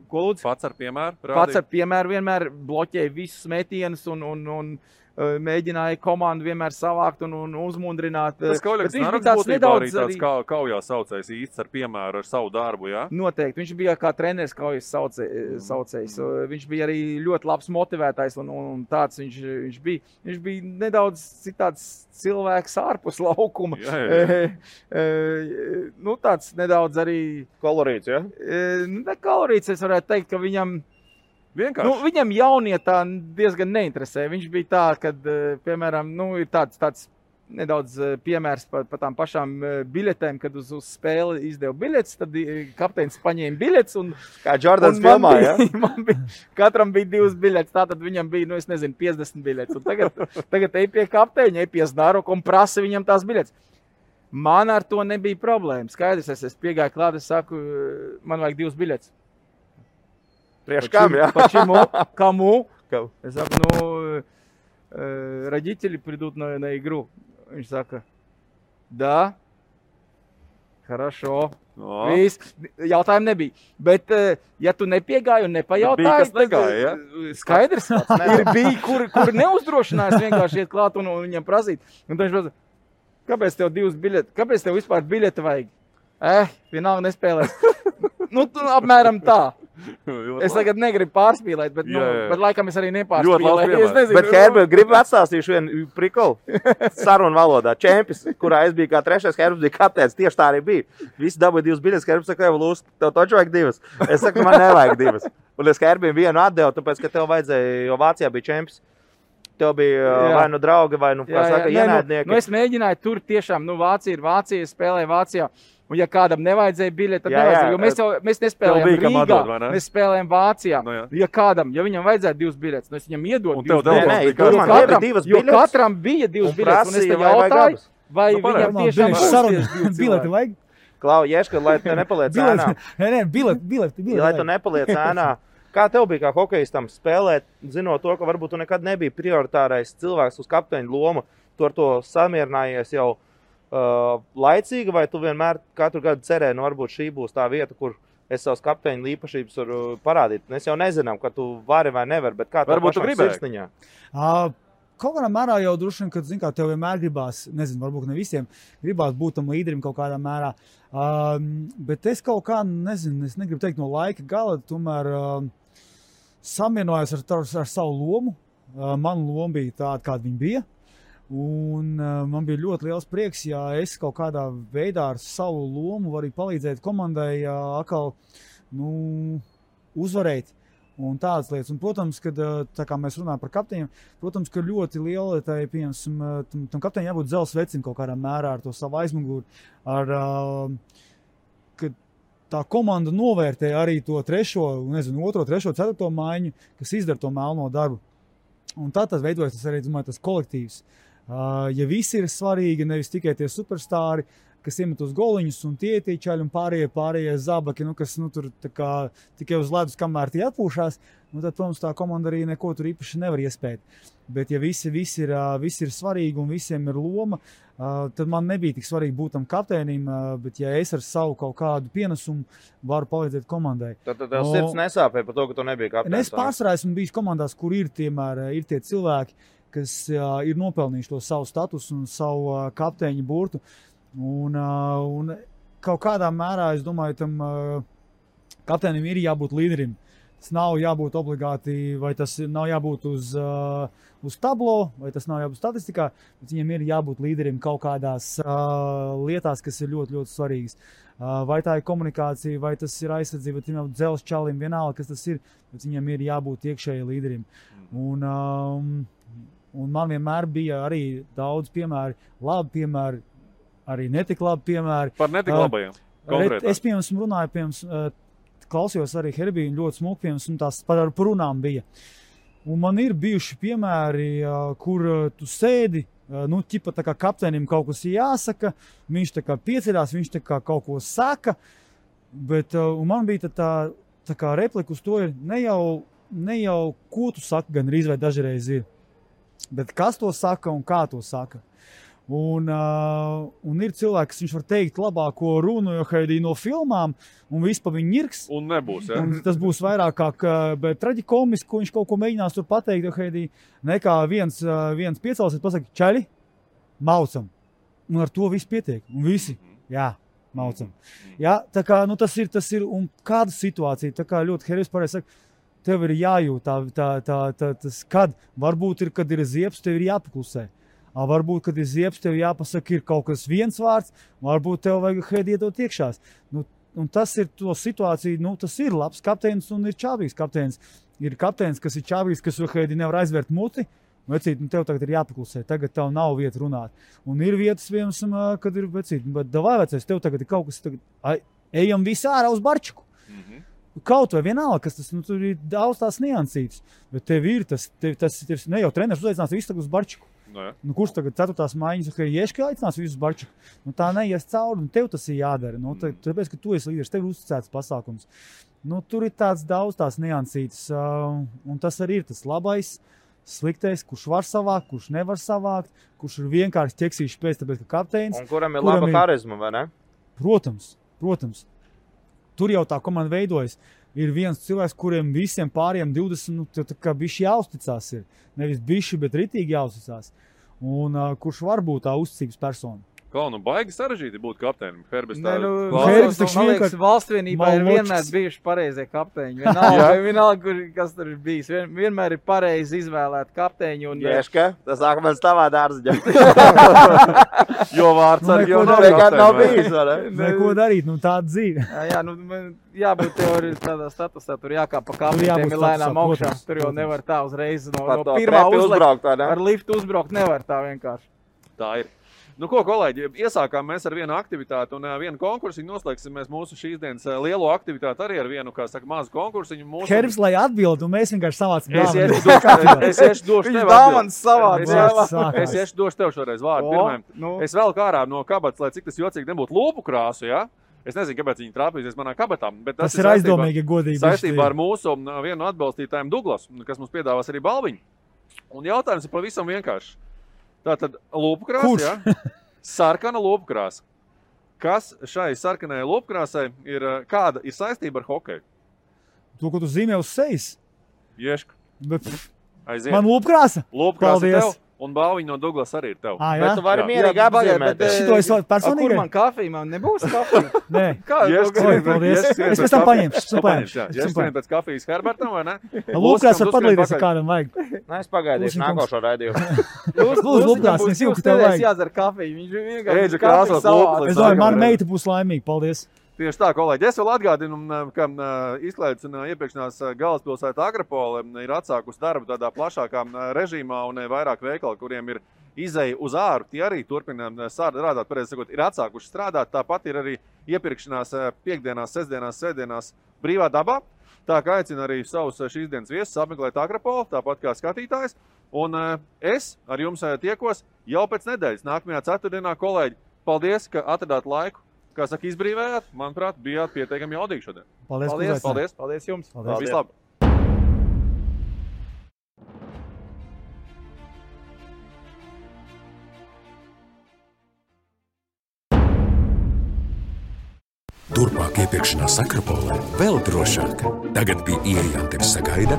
Ko lūdzu? Pats ar piemēru? Pats ar piemēru vienmēr bloķēja visus metienus un mēģināja komandu vienmēr savākt un uzmundrināt. Tas Kauļaks Naroks būtībā arī tāds kaujā saucējs īsts ar piemēru ar savu darbu, jā? Noteikti. Viņš bija kā treneris kaujas saucējs. Viņš bija arī ļoti labs motivētājs un tāds viņš bija. Viņš bija nedaudz citāds cilvēks ārpus laukuma. Nu, tāds nedaudz arī... Kolorīts, ja? Ne kolorīts, es varētu teikt, ka viņam... Vienkārši. Nu, viņam jaunietā diezgan neinteresē. Viņš bija tā, kad, piemēram, ir tāds nedaudz piemērs par tām pašām biļetēm, kad uz spēli izdeva biļetes, tad kapteinis paņēma biļetes. Kā Jordans filmā, ja? Katram bija 2 biļetes, tātad viņam bija, 50 biļetes. Un tagad ej pie kapteiņa, ej pie Znaroka un prasa viņam tās biļetes. Man ar to nebija problēma. Skaidrs, es piegāju klāt, es saku, man vajag 2 biļetes. Priekš kam, jā? Почему? Кому? Я saku, родители придут на игру. Viņš saka, да, хорошо. Viss. Jautājumu nebija. Bet, ja tu nepiegāji un nepajautāji, tad skaidrs, bija, kur neuzdrošinājās vienkārši iet klāt un viņam prasīt. Un viņš prasa, kāpēc tev 2 biļeti? Kāpēc tev vispār biļeti vajag? Vienalga nespēlēs. Apmēram tā. Es tagad negribu pārspīlēt, bet laikam es arī nepārspīlēju. Bet Herbert, gribu atstāstīšu vienu prikolu sarunu valodā. Čempis, kurā es biju kā 3. Herbert bija kapteinis, tieši tā arī bija. Visi dabūja 2 biļetes, Herbert saka, Lūs, tev taču vajag 2. Es saku, man nevajag 2. Un es Herbert vienu atdevu, tāpēc, ka tev vajadzēja, jo Vācijā bija čempis. Tev bija vai nu draugi, vai nu, kā saka, ienaidnieki. Es mēģināju tur tiešām, Vācija ir Vācija, spēlēju Vācijā. Un ja kādam nevajadzēja biļeti, tad nevajadzēja, jo mēs nespēlējām Rīgā, mēs spēlējām Vācijā. Ja viņam vajadzēja 2 biļetes, es viņam iedodu 2 biļetes. Jo katram bija 2 biļetes, un es te jautāju, vai viņam tiešām bileti vajag? Klau, Ješka, lai tu nepaliec ēnā. Nē, bileti. Lai tu nepaliec ēnā. Kā tev bija kā hokejistam spēlēt, zinot to, ka varbūt tu nekad nebija prioritārais cilvēks uz kapteiņa lomu, tu ar to samierinājies jau laicīgi, vai tu vienmēr katru gadu cerēji, varbūt šī būs tā vieta, kur es savus kapteiņu īpašības varu parādīt. Mēs jau nezinām, ka tu vari vai nevar, bet kā tev pašām sirsniņā? Kaut kādā mērā jau droši vien, kad, kā tev vienmēr gribās, nezinu, varbūt ne visiem, gribās būt tam līderim kaut kādā mērā. Bet es kaut kā, nezinu, es negribu teikt no laika gala, tomēr samierinājos ar savu lomu. Mana loma bija tāda, kāda viņa bija. Un man bija ļoti liels prieks, ja es kaut kādā veidā ar savu lomu varu palīdzēt komandai atkal uzvarēt un tādas lietas. Un, protams, kad tā kā mēs runājam par kapteiņiem, protams, ka ļoti liela tam kapteiņam jābūt dzelzs vecim kaut kādā mērā ar to savu aizmuguri, kad tā komanda novērtē arī to 3., 2., 3., 4. maiņu, kas izdara to melno darbu. Un tā tas veidojas, tas arī, domāju, tas kolektīvs. Ja visi ir svarīgi, nevis tikai tie superstāri, kas iemet uz goliņus un tie čaļi un pārējie zabaki, kas tur tikai uz ledus, kamēr tie atpūšās, tad, protams, tā komanda arī neko tur īpaši nevar iespēt. Bet ja visi ir svarīgi un visiem ir loma, tad man nebija tik svarīgi būt tam kapteinim, bet ja es ar savu kaut kādu pienesumu varu palīdzēt komandai. Tad tev sirds nesāpēja par to, ka tu nebija kapteinis? Es pārsvarā esmu bijis komandās, kur ir tie cilvēki, kas ir nopelnījuši to savu statusu un savu kapteiņu burtu. Un kaut kādā mērā, es domāju, tam kapteinim ir jābūt līderim. Tas nav jābūt obligāti, vai tas nav jābūt uz tablo, vai tas nav jābūt statistikā, bet viņam ir jābūt līderim kaut kādās lietās, kas ir ļoti, ļoti svarīgas. Vai tā ir komunikācija, vai tas ir aizsardzība, vai viņam dzelzs čalim, vienalga, kas tas ir, bet viņam ir jābūt iekšēji līderim. Un man vienmēr bija arī daudz piemēri, labi piemēri, arī netik labi piemēri. Par netik labajiem? Es, piemēram, runāju, klausījos arī Herbiju, ļoti smuki, piemēram, un tās par runām bija. Un man ir bijuši piemēri, kur tu sēdi, ķipa tā kā kapteinim kaut kas jāsaka, viņš tā kā pieceļās, viņš tā kā kaut ko saka, bet man bija tā kā replika uz to ir ne jau ko tu saki, gan arī vai dažreiz ir. Bet kas to saka un kā to saka. Un ir cilvēki, kas viņš var teikt labāko runu, jo Heidi no filmām, un viss pa viņu ņirks. Un nebūs, ja? Un tas būs vairāk kā traģikomiski, ko viņš kaut ko mēģinās tur pateikt, jo Heidi nekā viens piecelsies, pasaka, čaļi, maucam. Un ar to viss pietiek. Un visi, jā, maucam. Jā, tā kā, nu tas ir, un kāda situācija, tā kā ļoti Herijs pareizi saka, tev ir jājūt, tas kad, varbūt kad ir ziepes, tev ir jāpaklusē. Varbūt, kad ir ziepes, tev jāpasaka, ir kaut kas viens vārds, varbūt tev vajag Heidi iedot iekšās. Un tas ir to situāciju, tas ir labs kapteinis un ir čābīgs kapteinis. Ir kapteinis, kas ir čābīgs, kas Heidi nevar aizvērt muti, vecīt, tev tagad ir jāpaklusē, tagad tev nav vieta runāt. Un ir vietas, piemēram, kad ir vecīt, bet davai vecais, tev tagad ir kaut kas, ejam visi ārā uz barčiku. Kaut vai vienalga, kas tas, tur ir daudz tās niansītas, bet tev ir tas ne jau treneris uzaicinās visu tagad uz barčiku. Kurš tagad 4. maiņas, ka Ieški aicinās visus barčiku? Tā neies cauri, un tev tas ir jādara. Tāpēc, ka tu esi līderis, tev ir uzticēts pasākums. Tur ir daudz tās niansītas, un tas arī ir tas labais, sliktais, kurš var savākt, kurš nevar savākt, kurš ir vienkārši ķeksīšs pēc, tāpēc, ka kapteinis. Un kuram ir laba harizma, vai ne? Protams. Tur jau tā komanda veidojas. Ir viens cilvēks, kuriem visiem pāriem 20, tā kā bišķi jāuzticās ir. Nevis bišķi, bet ritīgi jāuzticās. Un kurš var būt tā uzticības persona. Baigi sarežģīti būt kapteinim. Herbis tā... Herbis taču vienkārši valstvienībā ir vienmēr bijuši pareizie kapteiņi. Vienalga, kas tur ir bijis. Vienmēr ir pareizi izvēlēt kapteiņu. Ieška, tas sāk man stāvā dārziņā. Jo vārds ar jau nav bijis, vai ne? Neko darīt, tāda dzīve. Jābūt tev arī tādā statusā, tur jākāp pa kapteņiem ir lēnām augšā. Tur jau nevar tā uzreiz no pirmā uzlikt. Ar liftu uzbraukt nevar tā vienkārši. Tā ir. Ko, kolēģi, iesākām mēs ar vienu aktivitāti un vienu konkursiņu. Noslēgsim mēs mūsu šīs dienas lielo aktivitāti arī ar vienu, kā saka, mazu konkursiņu. Herbs, lai atbild, un mēs vienkārši savācam dāvanu. Es iešu došu tev atbild. Es iešu došu tev šoreiz vārdu pirmajam. Es vēl kārā no kabatas, lai cik tas jocīgi nebūtu lūpu krāsu, ja? Es nezinu, kāpēc viņi trāpīsies manā kabatā. Bet tas ir aizdomīgi godīgi. Saistībā ar mūsu vienu atbalstītājiem Douglas, kas mums piedāvās arī balviņu. Un jautājums ir pavisam vienkārši. Tātad lūpkrāsa, ja? Sarkana lūpkrāsa. Kas šai sarkanai lūpkrāsai kāda ir saistība ar hokeju? To, ko tu zīmē uz sejas? Ieška. Aiziet. Man lūpkrāsa? Lūpkrāsa tev, un balviņa no Douglas arī ir tev. Jā? Bet tu vari mierīgi apzīmēt. Šito es personīgi? Kur man kafija? Man nebūs kafija? Nē. Paldies. Es pēc tam paņemšu. Ieška pēc kafijas Herbertam, vai ne? Lūpkrāsa var padalīties, ja kādam vajag. Nē, es pagaidīšu nākošo raidījumu. Lūdzu, lūpkrāsa, es jūtu, ka tev vajag. Jādzer kafiju. Viņš vienkārši kafiju savāds. Es domāju, mana meita būs laimīga. Paldies. Tieši tā, kolēģi. Es vēl atgādinu, ka izklaides un iepirkšanās galvaspilsēta Akropole ir atsākusi darbu tādā plašākā režīmā un vairāk veikali, kuriem ir izeja uz āru. Tie arī turpina strādāt, pareizi sakot, ir atsākuši strādāt. Tāpat ir arī iepirkšanās piekdienās, sestdienās, sētdienās brīvā dabā. Tā kā aicina arī savus šīs dienas viesus apmeklēt Akropoli, tāpat kā skatītājs. Un es ar jums tiekos jau pēc nedēļas, nākamajā ceturtdienā, kolēģi. Paldies, ka atradāt laiku. Kā saka, izbrīvējāt, manuprāt, bijāt pietiekami jaudīgi šodien. Paldies jums. Vislabāk. Turpmāk iepirkšanās Akropolē vēl drošāk. Tagad pie ieejām tevi sagaida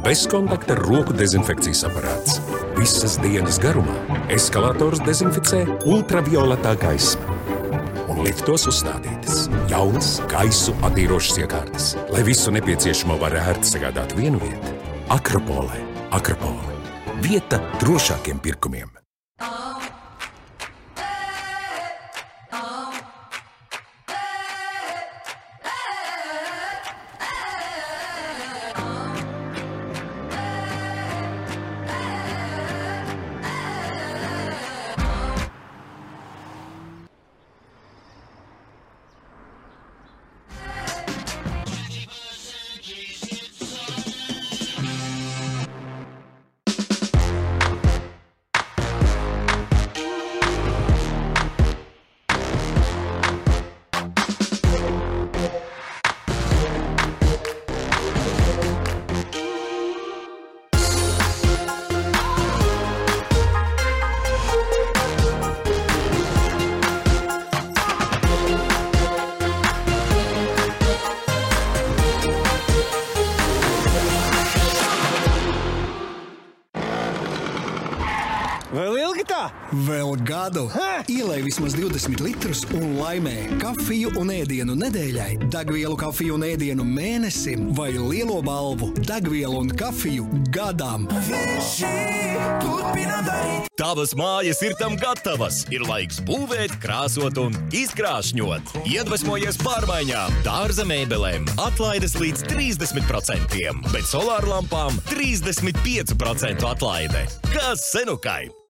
bezkontakta roku dezinfekcijas aparāts. Visas dienas garumā eskalators dezinficē ultravioletā gaisma. Un liftos uzstādītas jaunas gaisu attīrošas iekārtas, lai visu nepieciešamo var ērti sagādāt vienu vietu. Akropolē. Akropole. Vieta drošākiem pirkumiem. Vēl ilgi tā? Vēl gadu. Ielej vismaz 20 litrus un laimē kafiju un ēdienu nedēļai, degvielu kafiju un ēdienu mēnesim vai lielo balvu degvielu un kafiju gadam. Tavas mājas ir tam gatavas. Ir laiks būvēt, krāsot un izkrāšņot. Iedvesmojies pārmaiņām. Dārza mēbelēm atlaides līdz 30%, bet solārlampām 35% atlaide. Kas senukai?